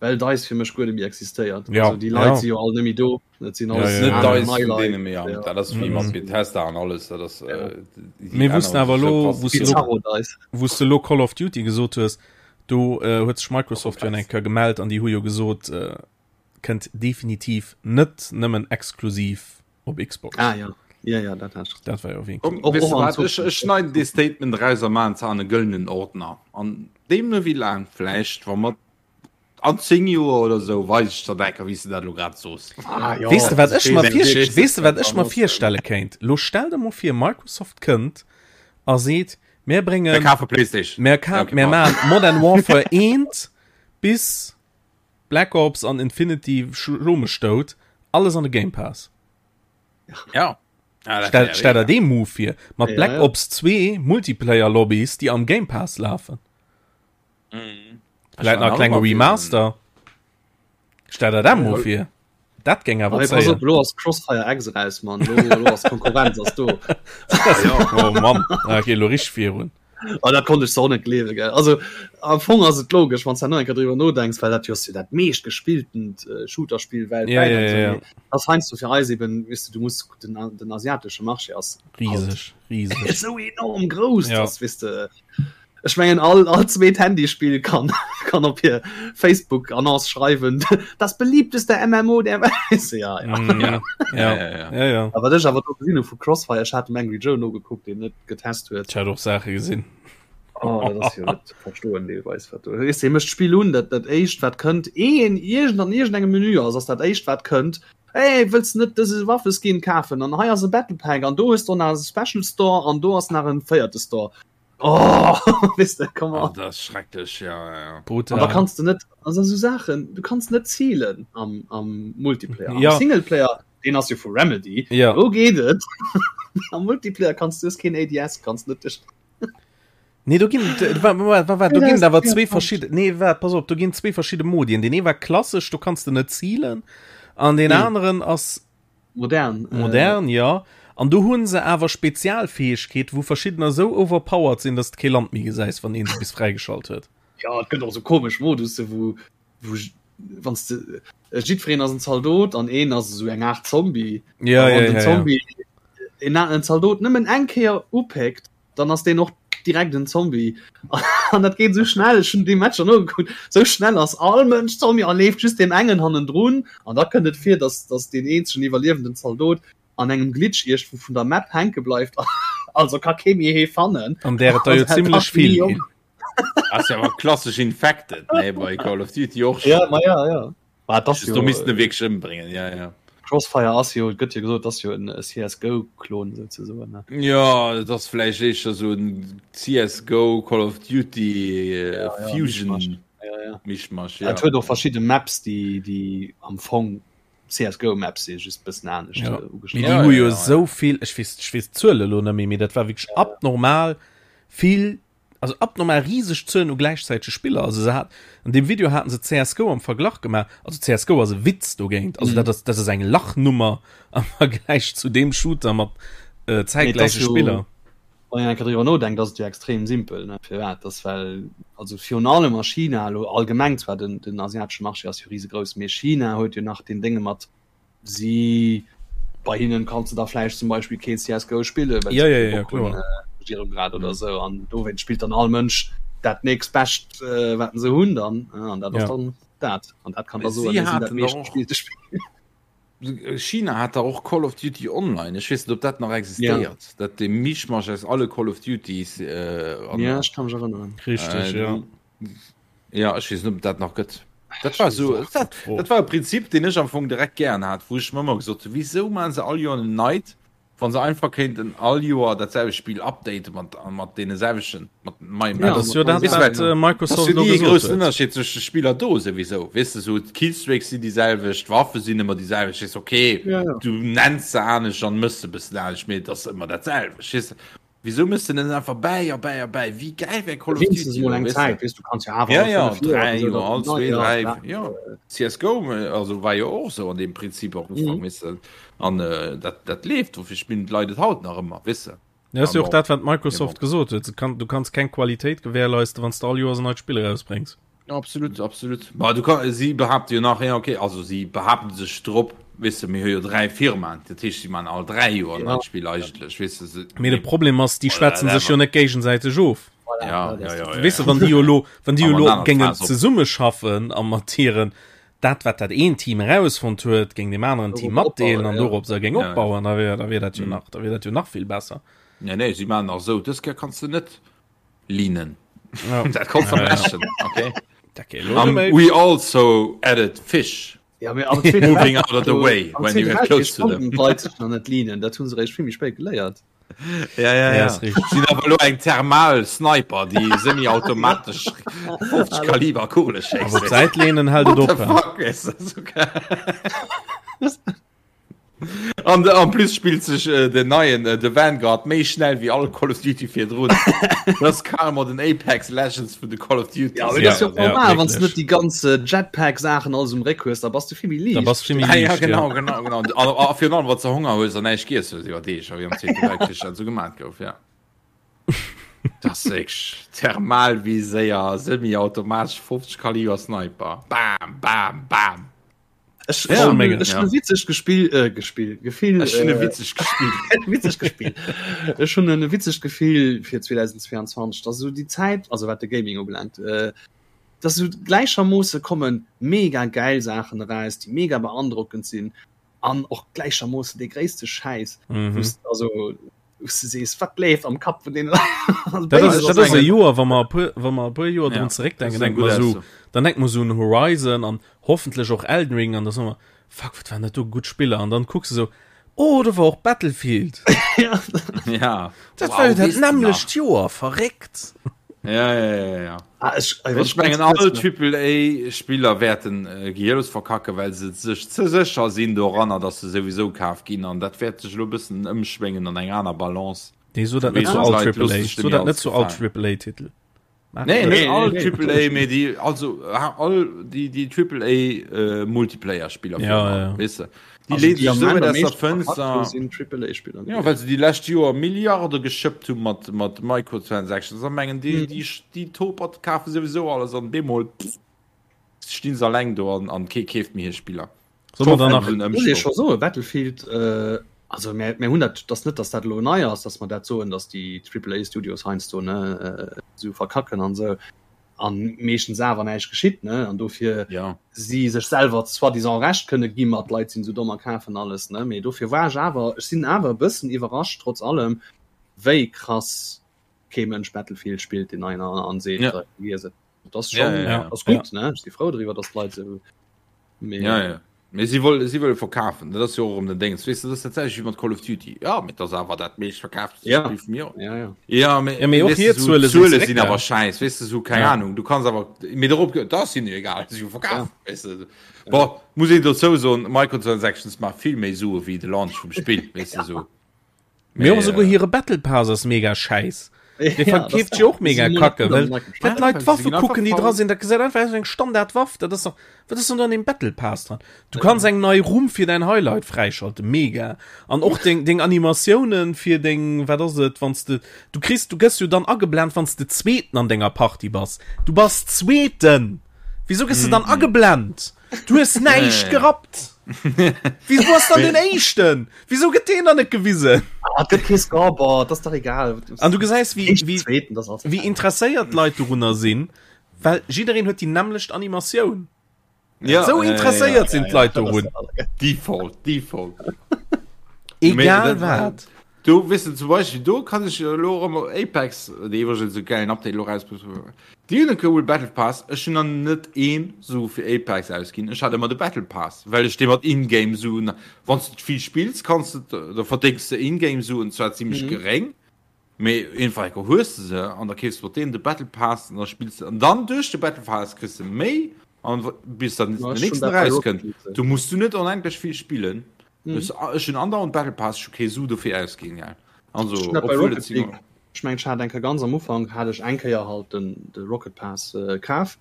Well DICE fir mech guer net méi existéiert. Ja, Also déi Leit ja. si jo all net méi do. Dat sinn Ja, alles ja, Net ja. aner DICE nei vun Leit. deene méi an. Ja. Dat ass wéi mat Mhm. Bethesda an alles. Dat ass, Ja. äh, déi Mir wussten änneren awer sech sou lo, krass. wous de lo, Bizarro DICE. wous de lo Call of Duty gesot hues, do äh, huet sech Microsoft jo eng Kéier gemellt an déi hu jo gesot, äh, kënnt definitiv net nëmmen exklusiv op Xbox. Ah ja. Ja, ja, dat hat ech. Dat war jo wéi. Komm, Och- weess och de an wat, ech, ech schneiden dee Statement raus a maachen se an e gëllenen Ordner. An deemno wéi laang, vläicht, wa mer an 10 Joer oder sou, weis ech der dat, wéi s de dat elo grad soos. Ah, jo. Weess de wat ech mer Weess vir, weess de wat ech mer Annonce. virstelle kéint? Lo stell der mol vir Microsoft kënnt a seet, mir Mir bréngen, kafe PlayStation. mir ka, Okay, mir pardon. maachen Modern Warfare 1 bis Black Ops an Infinity schlo mech dout, alles an de Game Pass. Ja. Ja, dat Stell, wär stell der mega. dee Move vir, mat Ja, Black ja. Ops 2 Multiplayer Lobbys, déi am Game Pass lafen. Mhm. Vläit nach e klenge Remaster. Stell der dat mol vir. Dat géing awer Aber pass zéien. op, lo ass Crossfire X eraus, Mann. Lo, lo ass Konkurrenz ass do. Oh Mann, da geet elo richteg virun. Oh, dat konnt ech so net gleewen, gell. Also am Fong ass et logesch, wann s du nach eng Kéier driwwer nodenks, well dat jo ass jo dat meescht gespilltent äh, Shooterspill weltwäit. Ja, ja, an so. ja, ja. Mee Das heiansdo fir eis eben, weess du, du muss den, den asiatesche Marché ass Rieseg, rieseg. esou enorm grouss, Ja. dass, weess de, ech mengen all, all zweet Handyspill kann, kann op hir Facebook-Annonce schreiwen, das beliebteste MMO der Welt. Ja, ja. Mm, ja, Ja, ja, ja. ja, ja. A wat ech awer do gesinn hu vu Crossfire, ech hat dem Angry Joe nogekuckt, deen net getest huet. Ech hat och Saache gesinn. Oh, dat ass jo net ze verstoen deelweis wat do. Weess de, mécht d'Spill un, dat dat éischt wat kënnt, een iergend an iergendengem Menü ass, ass dat éischt wat kënnt, Hey, wëlls de net dëse Waffeskin kafen? An hei ass e Battle Pack an do hues de och nach e Special Store an do ass nach en véierte Store. Oh, weess de, come Oh, on. dat ass schrecklech, ja, ja, ja. An da Brutal. kanns de net, also esou Saachen, du kanns net zielen am, am Multiplayer. Am Ja. Singleplayer, deen ass jo vu Remedy, Ja. do geet et. Am Multiplayer kanns du, hues keen ADS, kanns net duerch. Nee, do ginn wa, wa, wa, wa, do ginn awer zwee verschidde nee wat pass op do ginn zwee verschidde Modien den ee war klassesch do kanns de net zielen an den Nee. aneren ass Modern. Äh, modern ja an do hunn se awer Spezialfäegkeet wou verschiddener sou overpowered sinn dass de kee Land méi gesäis wann een se bis fräigeschalt huet. Ja, et gëtt och sou komesch Modusse wou wou wann s de äh, jiddwereen ass en Zaldot an een ass esou eng Aart Zombie. Ja, A wann ja, den ja, ja. Zombie en, en Zaldot nëmmen eng Kéier upéckt, dann ass deen och direkt en Zombie. An dat geet sou schnell, ech hunn déi Matcher nogekuckt, sou schnell ass all Mënsch Zombie a leeft just deem engen hannendrun. An da kënnt et vir, dass, dass deen eenzegen iwwerliewenden Zaldot an engem Glitch iergendwou vun der Map hänke bleift, also ka kee méi hee fannen. An där et der jo Also, zimlech vill ginn. Ass jo awer klassesch Infected, ne, bei Call of Duty och Ja, schon. ma ja, ja. Ma dat ass Jo, jo, do missten e wierklech ëmbréngen, ja, ja. Crossfire ass jo, et gëtt jo gesot, ass jo en CSGO-Klon souzesoen, ne? Ja, et ass vläicht éischter sou en CSGO, Call of Duty Ja, ja, Fusion Mischmasch. Ja, ja. Mischmasch, ja. Et huet och verschidde Maps, déi, déi am Fong. CSGO Maps si just bëssen anescht ja. Äh, Mee déi hu jo esou vill, ech weess, ech weess d'Zuele lo net méi, mee dat war wierklech abnormal vill, also abnormal riseg Zuelen u gläichzäitege Spiller. Also se hat, an deem Video haten se CSGO am Verglach gemaach, also CSGO ass e Witz dogéint, also mm. dat ass, dat ass eng Lachnummer am Vergläich zu deem Shooter mat äh, zäitgläiche Spiller. Wann een eng Kéier driwwer nodenkt, ass et jo extrem simpel, ne? Firwat? Dass well, also virun allem a China, elo allgemeng zwar, den, den asiatesche Marché ass jo risegrouss, mee China huet jo nach deen Dénge mat, si, bei hinnen kanns de da vläicht zum Beispill keen CSGO spillen, well se kee Bock hunn, Regierung grad oder esou. An dowéinst spillt dann all Mënsch dat nächst Bescht, wat se hunn dann, an dat ass dann dat. An dat kann da soen, mir sinn dat meeschtgespillte Spill. China hat da och Call of Duty Online. Ech weess net, ob dat nach existéiert. Ja. Dat de Mischmasch aus alle Call of Duties. Äh, an, ja, ech kann mech erënneren. Richtig, äh, ja. Ja, ech weess net, ob dat nach gëtt. Dat war so, dat, dat war e Prinzip, den ech am Fong direkt gären hat, wou ech mir ëmmer gesot hunn, wieso maachen se all Joer en neit Wann se einfach kéinten all Joer dat selwecht Spill updaten mat mat deene selwechten mat neien Ja, dat ass jo dat, wat äh, Microsoft elo gesot huet. Ënnerscheed zwëscht de Spiller do souwisou. Weess de, sou d'Killstreaks sinn déi selwecht, d'Waffe sinn ëmmer déi selwecht. Weess okay, ja, ja. du nenns se anescht an mëss se bëssen anescht, mee et ass ëmmer dat selwecht. Weess de, wieso mëss de denn einfach bäi a bäi a bäi? Wéi gäil wär Call of Duty elo, eng Zäit, weess du kanns jo awer ja, ja, 3 Joer, all 2, 3, ja. CSGO also war jo och sou an deem Prinzip och Ufank, mhm. weess de. An äh, dat, dat leeft, wofir spillen d'Leit et haut nach ëmmer, weess de. Ja, ass jo och dat, wat Microsoft gesot huet. Kann, du kanns keng Qualitéit gewährleisten, wann s de all Joers en neit Spill erausbréngs. Absolut, absolut. Ma du kann, si behaapte jo nach, ja, okay, also si behaapten sech drop, weess de, mir hu jo 3 Firmaen, dat heescht, si man all 3 Joer en neit Spill eigentlech, weess de. Se, Mee de Problem ass, déi schwätzen sech jo net géigesäiteg of. Ja, ja, ja, ja, Weess de, wann déi jo elo, wann déi jo elo géingen zesummeschaffen a mat hiren, dat wat dat eent Team erausfonnt huet, géing deem aneren Team matdeelen an dorop se géing opbauen, da wier da wier dat jo mhm. nach da wier dat jo nach vill besser. Nee, nee, si man nach sou dës Kéier kanns du net linen. Ja. dat kannst du ja, ja. okay. Um, we also added fish. Ja, moving out of the way when you get close to them. Leit sech nach net linen, dat hunn se réischt vill méi spéit geléiert. Ja, ja, ja. Sinn awer lo eng thermal Sniper, déi semi-automatesch 50 Kaliber Kugele schéisst. Awer d'Säit lehnen hält et op. Fuck, ist das so geil. An en plus spillt sech äh, den neien äh, de Vanguard méi schnell wéi all Call of Duty virdrun. Das ass carrément den Apex Legends vun de Call of Duty. Ja, aber das ist ja normal, wann du net déi ganze Jetpack-Saachen alles um Réck hues, da bass du vill méi liicht. Da bass vill méi liicht. Ja, genau, genau, genau. A virun allem, wann du Honger hues an näischt giess hues iwwer Deeg, wéi am Zweete Weltkrich dat esou gemat gouf, ja. Das ist wirklich Thermalviséier, semi-automatesch 50 Kaliber Sniper. Bam, bam, bam. Ech ja, hunn ech hunn e witzegt Gespill äh, Gespill Gefill Ech hunn e witzegt Gespill witzegt Gespill Ech hunn e witzegt Gefill fir 2022 dass esou déi Zäit also wat de Gaming ubelaangt äh, dass esou gläichermoosse kommen mega gäil Saachen eraus déi mega beandrockend sinn an och gläichermoosse dee gréisste Schäiss mhm. wou's also wou's du sees wat leeft am Kapp vun deene Leit Dat ass, dat ass e Joer, wa mer e puer, wa mer e puer Joer drun zeréckdenken, denke mer esou, dann denke mer esou un Horizon an hoffentlech och Elden Ring an da soe mer, fuck, wat waren dat do gutt Spiller an dann kucks de sou, oh, do war och Battlefield. Ja. Dat war jo dat nämmlecht Joer, verréckt. Ja, ja, ja, ja. Ah, ech, ech mengen all Triple A Spiller wäerten äh, gehirlos verkacken, well se sech ze sécher sinn doranner, dass se souwisou kaf ginn an dat wäert sech elo e bëssen ëmschwéngen an eng aner Balance. Nee, so dat net zu all Triple A, so dat net zu all Triple A Titel. Nee, net all Triple A, mee déi also all déi déi Triple A äh, Multiplayer Spiller ja, ja. Weißt du? Déi leeën sech esou wäit aus der Fënster. Sinn Triple A Spiller. Ja, well se déi lescht Joer Milliarde geschëppt hu mat mat Microtransactions a mengen déi déi déi Topert kafe souwisou alles an bemol stinn se alleng do an an kee keeft méi hir Spiller. Soll mer dann nach Muss ee scho soen, Battlefield, äh, also mir, mir hunn dat, dass net, dass dat elo nei ass, dass mer dat soen, dass déi Triple A Studios heiansdo ne äh, sou verkacken an sou an meeschtens awer näischt geschitt ne an dofir ja. si sech selwer soi-disant Recht kënne gi mat Leit sinn sou domm a kafen alles ne mee dofir war ech awer ech sinn awer e bëssen iwwerrascht trotz allem wéi krass kee Mënsch Battlefield spillt deen neien an an seet ja. äh, et. Das schon ja, ja, ja. ass gutt ne ech si frou driwwer, dass d'Leit sou mee ja, ja. Mee si wëlle si wëlle verkafen, dat ass jo och erëm den Déngens. Weess de, dat ass dat selwecht wéi mat Call of Duty. Ja, mee dat ass awer dat meescht verkaafte Ja. Spill vum Joer. Ja, ja. Ja, mee, Ja, mee och weess de, hir sou, Zuele sinn d'Zuele sinn zeréckgaang. awer schäiss, weess de, sou, keng Ja. Ahnung. Du kanns awer, mee dorop, dat ass hinnen jo egal, si hu verkaf, Ja. weess de. Bon, muss een dozou soen, Microtransactions maache vill méi Sue wéi de Launch vum Spill, weess de, sou. Mee och esouguer hire Battle Pass ass mega schäiss. Dee verkeeft sech och mega kacke, well well d'Leit d'Waffe kucken, déi dra sinn. Dat gesäit einfach aus wéi eng Standardwaff. Dat ass dach, wat ass dann do an deem Battle Pass dran? Du kanns eng nei Rumm fir däin Highlight fräischalten, mega. An och deng, deng Animatiounen fir deng, wat ass et, wann s de, du kriss, du gëss jo dann ageblent, wann s de Zweeten an denger Partie bass. Du bass Zweeten! Wieso gëss de dann ageblent? Du hues näischt gerappt! Wieso ass dann den Éischten? Wieso gëtt deen dann net gewisen? Ah, et gëtt kee Scoreboard, das ist doch egal. An du gesäis, wéi, Éischten, wéi, Zweeten, das ist alles wéi egal. interesséiert d'Leit dorunner sinn, well jiddereen huet déi nämmlecht Animatioun. Ja, Sou ja, ja, interesséiert sinn d'Leit das ist dorun. alles. Default, Default. Mee Egal dat- wat. Du weess de, zum Beispill do kann ech elo erëm Apex, déi iwwregens e gäilen Update elo erausbruecht hunn, déi hunn e coole Battle Pass. Ech hunn nach net ee Su fir Apex ausginn. Ech hat ëmmer de Battle Pass, well ech dee mat In-Game Suen, wann s de vill spills, kanns de, da verdéngs de In-Game Suen, zwar zimmlech geréng, mee iergendwann enker hues de se an da keefs de mat deenen de Battle Pass an da spills de an dann duerch de Battle Pass kriss de méi an bis dann den nächsten erauskënnt, du muss du net onendlech vill spillen. Mhm. Ech hunn andauernd Battle Pass, ech hu kee Su dofir ausginn, gell. Also, Ech bei obwuel Rocket et sinn. League, ech mengen, ech hat eng Kéier ganz am Ufank hat ech eng Kéier halt den de Rocket Pass äh, kaf.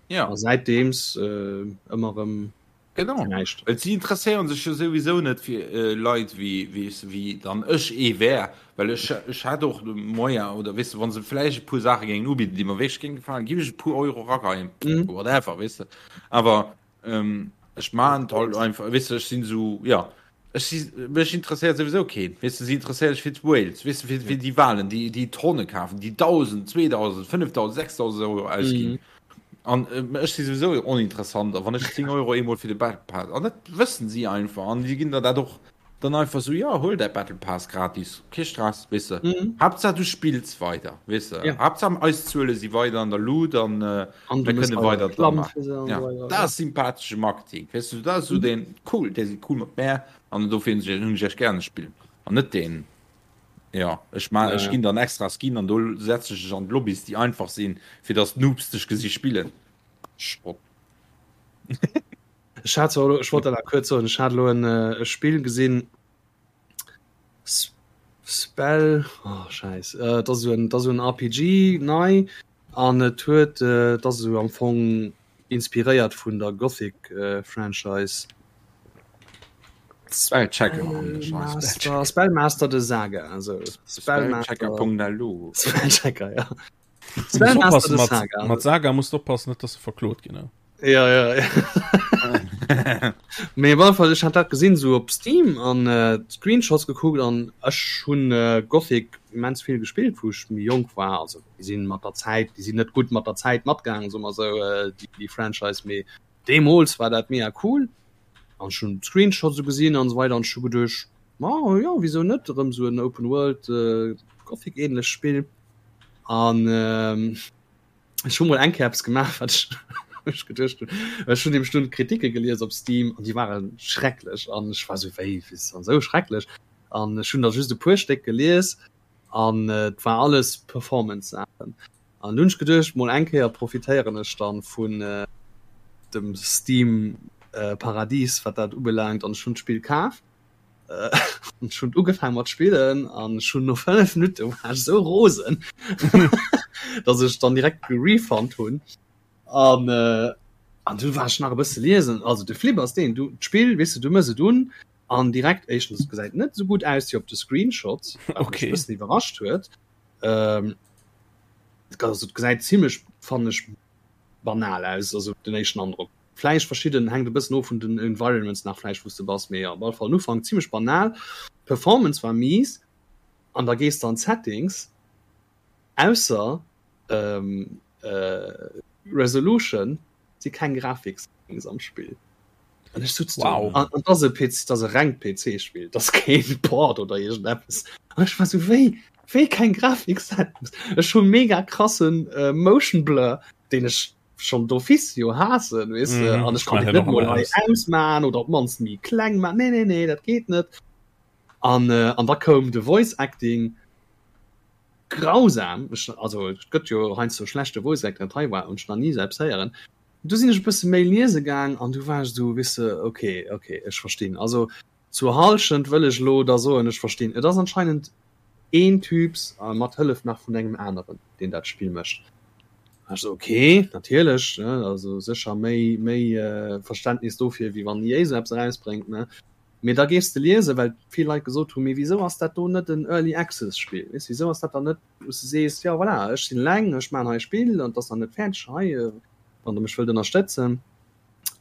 Ja. A säitdeems äh, ëmmer erëm Genau. näischt. Well si interesséieren sech jo souwisou net fir äh, Leit wéi, wéi, wéi dann ech ee wär. Well ech, ech hätt och de Moyen, oder weess de, wa se vläicht e puer Saache géingen ubidden, déi mer wierklech géinge gefalen, giff ech e puer Euro rageien, Mhm. whatever, weess de. Awer Ähm, ech man halt einfach weißt du, ech sinn so ja ech si mech interesséiert sowieso keen weißt du, sie interesséiert sech fir d'Whales weißt du, fir, fir déi Walen déi déi Tonne kafen déi 1000 2000 5000 6000 Euro ausginn an äh, ech si sowieso oninteressant a wann ech 10 Euro eemol fir de Battle Pass an dat wëssen si einfach an déi ginn der dat och Dann einfach sou, jo, huel däi Battle Pass gratis, kee Stress, weess de. Mhm. Haaptsaach du spills weider, weess de. Ja. Haaptsaach eis Zuele si weider an der Lut an An du mir mëss kënne weider weider dra Reklamm maachen. fir se an Ja, esou weider. dat ass sympathesche Marketing, weess de, dat ass sou Mhm. deen, cool, déi si cool mat mär an dofir hunn ech hunn ech echt gären d'Spill. An net deen, jo, ech ma Ja, ech ja. ginn der en extra Skin an do setze ech dech an d'Lobbys, déi einfach sinn, fir dass d'Noobs dech gesi spillen. Schrott. Ech hat zwar elo, ech wollt dat nach kuerz soen, ech hat elo en e Spill gesinn, Spell, oh Schäiss, et ass esou en, et ass esou en RPG nei an et huet, et ass esou am Fong inspiréiert vun der Gothic Franchise. Spellchecker an de Scheiss. Master, Spellmaster de Saga, esou. Spellchecker.lu. Spellchecker, ja. Spellmaster de Saga. Mat Saga musst du oppassen, net dass du verklot ginn. Ja, ja, ja. Mee op alle Fall, ech hat dat gesinn sou op Steam an äh, Screenshots gekuckt an ech hunn äh, Gothic immens vill gespillt, wou ech méi jonk war. Also déi sinn mat der Zäit, déi sinn net gutt mat der Zäit matgaangen, soe mer sou, äh, déi, déi Franchise, mee deemools war dat mega cool. An ech hunn d'Screenshots sou gesinn an esou weider an ech hu geduecht, ma jo, wisou net erëm sou en Open World äh, Gothic-ähnlecht Spill. An ähm, ech hu mol eng Kéier eppes gemaach, wat ech ech geduecht hunn. Ech hunn nämlech dunn d'Kritike gelies op Steam an déi ware schrecklech an ech war sou, wéi, wéi ass dann esou schrecklech? An ech hunn der just e puer Stéck gelies an et war alles Performance-Saachen. An dunn hunn ech geduecht, mol eng Kéier profitéieren ech dann vun dem Steam Paradies, wat dat ubelaangt an ech hunn d'Spill kaf. Ech hunn ugefaangen mat spillen an ech hunn no 5 Minutte war ech sou rosen, dass ech dann direkt gerefund hunn. An äh, an du war ech nach e bësse liesen. Also de Flip ass deen, du d'Spill, weess de, du mëss et un an direkt éischtens et gesäit net sou gutt aus wéi op de Screenshots, wat mech Okay. e bëssen iwwerrascht huet. Ähm, also et gesäit zimmlech, fannen ech, banal aus, also den éischten Androck. Vläicht verschidden, hänkt e bëssen of vun den Environments nach vläicht wou s de bass, mee op alle Fall den Ufank zimmlech banal. D'Performance war mies an da gees de an d'Settings, ausser Resolution si keng Grafiksettings am Spill. An ech sutz do Wow. an et ass e PC, et ass e rengt PC-Spill, et ass keen Port oder iergendeppes. An ech war sou, wéi, wéi keng Grafiksettings? Ech hu mega krassen Motion Blur, deen ech. schonn d'office jo haassen, weess de, an ech kann et net mol hei ausman oder op d'mannst méi kleng man. Nee, nee, nee, dat geet net. An an da koum de Voice Acting grausam, ech, also et gëtt jo heiansdo schlechte Voice Acting, dat hei war hunn ech nach ni esou eppes héieren. Du sinn ech e bësse méi liese gaang an du war ech esou, weess de, ok, ok, ech verstinn. Also zur Hallschent wëll ech elo da soen, ech verstinn. Et ass anscheinend een Typs a mat Hëllef nach vun engem aneren, deen dat Spill mécht. Ech esou, ok, natierlech, ne, also sécher méi, méi Verständnis dofir, wéi wann EA esou eppes erausbréngt, ne. Mee da gees de liesen, well vill Leit gesot hunn, mee wisou ass dat do net en Early Access Spill, weess, wisou ass dat dann net, wou s de sees, jo voilà, ech sinn eleng, ech maachen hei e Spill an et ass nach net fäerdeg, hei, wann der mech wëllt ënnerstëtzen.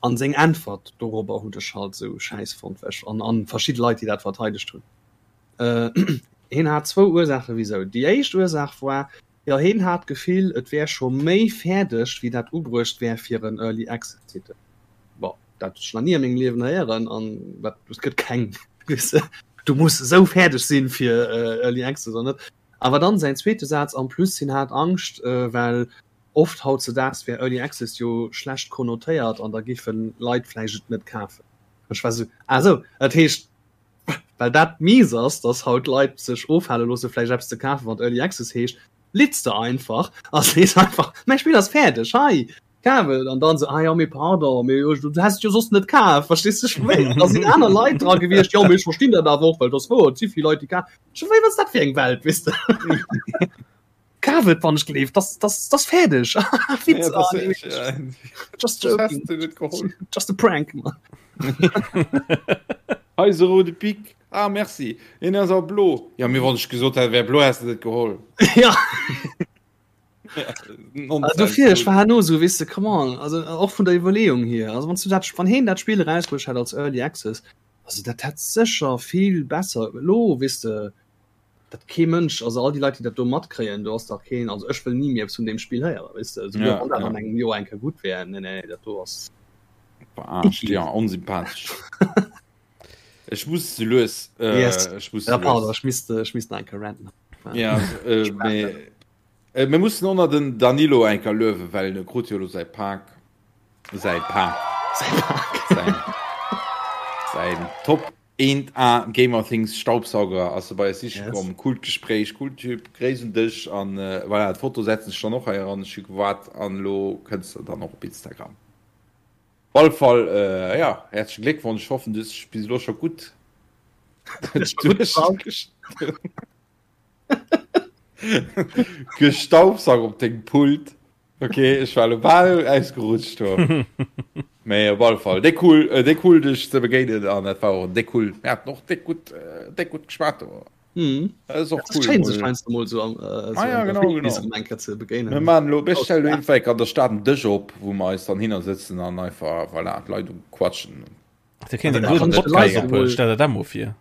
An seng Äntwert dorobber hunn ech halt esou schäiss fonnt, well ech, an, an verschidde Leit, déi dat verteidegt hunn. Hien hat zwou Ursaache wisou. Déi éischt Ursaach war, jo hien hat d'Gefill, et wär scho méi fäerdeg, wéi dat ubruecht wär fir en Early Access Titel. Bon, dat hunn ech nach ni a mengem Liewen héieren an dat et gëtt keng, weess de, du muss esou fäerdeg sinn fir Early Access oder net. Awer dann säin zweete Saz, en plus hien hat Angscht, well oft hautzedaags wär Early Access jo schlecht konnotéiert an da géife Leit vläicht et net kafen. Ech war esou, ah esou, dat heescht, Well dat mies ass, dass haut Leit sech ofhale loosse vläicht eppes ze kafen, wat Early Access heescht, litz de einfach a sees einfach, mäi Spill ass fäerdeg, hei, kaf et. An dann esou, ah jo, mee pardon, mee du häss et jo soss net kaf, verstees de? Ech wéi, da sinn aner Leit dra gewiescht, jo, mee ech verstinn dat awer och, well et ass wouer, et si vill Leit, déi kafen. Ech wéi, wat ass dat fir eng Welt, weess de? Kaf et, wann ech gleef, das, das, das fäerdeg. Witz, ja, ah, nee, ja. Just joking. Just a prank, man. Hei se rode Pik. Ah, merci. En ass awer blo. Ja, mir wann ech gesot hätt, wär blo, häss de net geholl. Ja. Also dofir, ech war herno so, weess de, come on, also och vun der Iwwerleeung hier, also wann du dat, wann heen dat Spill erausbruecht hätt als Early Access, also dat hätt sécher vill besser elo, weess de, dat kee Mënsch, also all déi Leit, déi dat do matkréien, do ass dach keen, also ech wëll ni méi eppes vun deem Spill héieren, weess de, souguer wann dat an engem Joer eng Kéier gutt wär, nee, nee, dat do ass Verarscht, ja, onsympathesch. Ech muss ze lues, Yes. ech muss ze Ja, pardon, lues. ech misst, ech misst nach eng Kéier ranten. Ja, äh, mee, äh, mir mussen och nach den Danilo eng Kéier luewen, well e krut jo elo säi Pak, säi Pak, Säi Pak. säin, säin Top Eent A Gamerthings Staubsauger ass se bei eis siche komm. Coolt Gespréich, cool Typ, Gréiss un dech an voilà, d'Foto setzen ech dann och hei eran. Ech hu gewaart an elo kënns de dann och op Instagram. Op alle Fall jo, häerzlechen Gléckwonsch, ech hoffen du hues dech bis elo scho gutt gestaubsaugt op dengem Pult. Ok, ech war lo bal ausgerutscht do. Mee op alle Fall déck cool, äh, déck cool dech ze begéinen an dat war och en déck cool, mir haten och déck gutt, äh, déck gutt geschwat do. Mhm. Dat ass och Das cool. schéin sech heiansdo mol sou am äh, Ah ja, genau, genau. eng Kéier ze begéinen. Mir maachen elo, mir stellen elo iergendwéi an der Stad en Dësch op, wou mer eis dann hinner sëtzen an einfach, voilà, d'Leit uquatschen. Da kéint een do den Podcast ophuelen, stell der dat mol vir.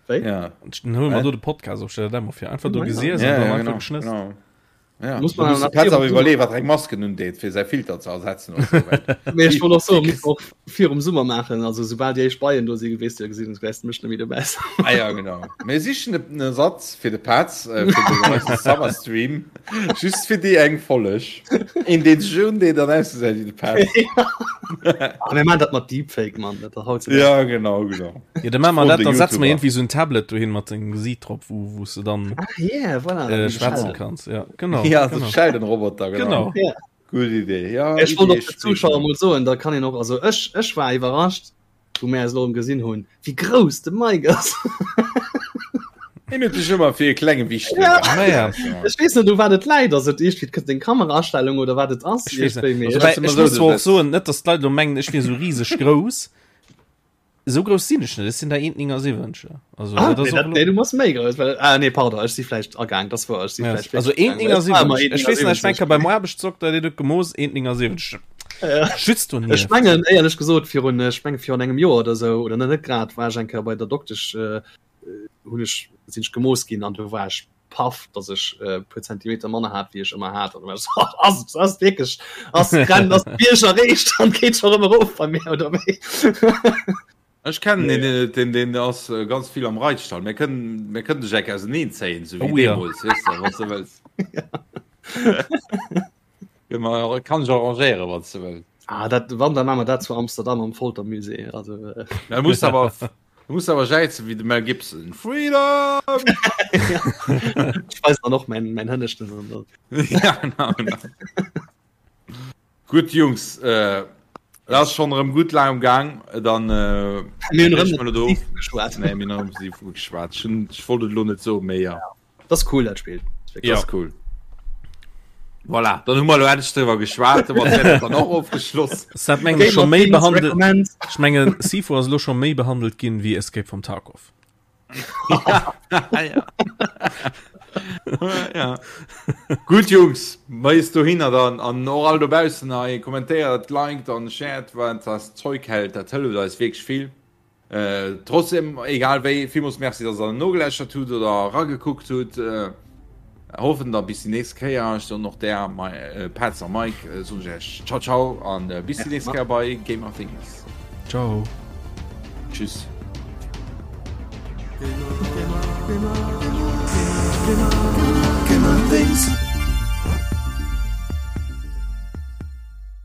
Wéi? Ja. Dann huele mer do de Podcast op, stell der dat mol vir. Einfach do gesiess Ja, an dann ja, einfach genau, geschnësst. genau. Ja, Muss da man muss de nach Petz virum awer iwwerleeën, wat eng Masken undeet, fir säi Filter ze ersetzen oder sou, well Mee ech wollt och soen, muss och virum Summer maachen, also soubal déi éischt Beien do sinn, weess de jo, gesinn, wäers de mech net méi dobäi sinn. Ah ja, genau. Mir sichen en Ersatz fir de Petz, äh, fir den eise Summer Stream, just fir déi eng Folleg. Een, deen sech undeet an ausgesäit wéi de Petz. Ah, mir maachen dat mat Deepfake, Mann, dat ass hautzudags. Ja, genau, genau. Ja, dann machen wir Froen dat, de dann setzen wir YouTuber. irgendwie so ein Tablet dohin mat dengem Gesiit drop, wo, wo du dann Ah, yeah, voilà. äh, schwätzen kannst. Ja, genau. Ja, so genau. Sheldon-Roboter, genau. Genau. Ja. Gutt Idee. Ja, Ech wollt Idee och de Zuschauer springen. mol soen, da kann een och, also ech, ech war iwwerrascht, wou mir eis elo erëm gesinn hunn, wéi grouss de Mike ass. Hien huet sech ëmmer fir e klenge Wichtel Ja. gehat. Naja. Ech weess net, u wat et läit, ass et iergendwéi d'K- deng Kameraastellung oder wat et ass, Ech weess net. iergendwéi, mee Also, ech, wobäi, immer ech so, muss zwar och das- soen, net dass d'Leit elo mengen, ech wier sou rieseg grouss. Esou grouss sinn ech net, ech sinn der 1,79. Also, Ah, dat ass nee, och dat, elo- nee, du bass méi grouss, well, ah, nee, pardon, ech si vläicht agaang, das war, ech si Ja, vläicht also wirklich agaang, well ech war ëmmer 1,79. Ech weess nach, ech 1,79. war beim Aarbechtsdokter, deen huet gemooss 1,79. Ja. Schützt du Ech nieft. mengen, éierlech gesot, virun, ech menge virun engem Joer oder sou, oder net grad, war ech eng Kéier bei der Doktesch, äh, hunn ech, sinn ech gemooss ginn an do war ech paff, dass ech e puer Zentimeter manner hat, wéi ech ëmmer hat. An du war ech so, ass, ass wierklech, ass d'Grenz, ass d'Bierg erreecht an geet scho rëm erof bei mir, oder wéi? Ech kennen een, deen, deen, deen ass ganz vill am Reitstall. Mir kënnen, mir kënnen dech eng Kéier auseneen zéien, sou wéi Oh ja. deemools, weess de, wann s de wëlls. Kann ech arrangéieren, wann s de wëlls. Ah, dat, wann, dann maache mer dat zu Amsterdam am Foltermusée. Also, äh. Da muss awer, du muss awer jäizen wéi de Mel Gibson. Freedom! ja. Ich weiß dann och mein, mein Hënneschten. An ja, genau, genau. Gutt, Jungs, äh, dat ass schonn erëm gutt laang am Gaang. Dann äh, Mir hunn erëm do. Geschwat. Nee, mir hunn erëm Sifu geschwat. Ich, ich wollt et lo net soen, mee ja. Das ist cool, dat Spiel. Ja. Das ist cool. Voilà, dann hu mer lo endlech driwwer geschwat, dann och ofgeschloss. Dat mengen ech scho méi behandelt. Ech mengen Sifu ass lo scho méi behandelt ginn wéi Escape from Tarkov. ja. ja. ja. Gutt Jungs, mais dohinner dann an och all dobaussen hei kommentéiert, liked an shared wat das Zeug hält, dat hëlleft eis wierklech vill. Trotzdem, egal wéi, villmools Merci, dass der nogeläschert hutt oder eragekuckt hutt. Hoffen da bis déi nächst Kéier. Ech soen och där Petz a Mike soen ech iech Ciao ciao an bis déi nächst Kéier bei Gamer Things. Ciao. Tschüss. Gamer, Gamer, Gamer, Gamer, Gamer, Gamer Things.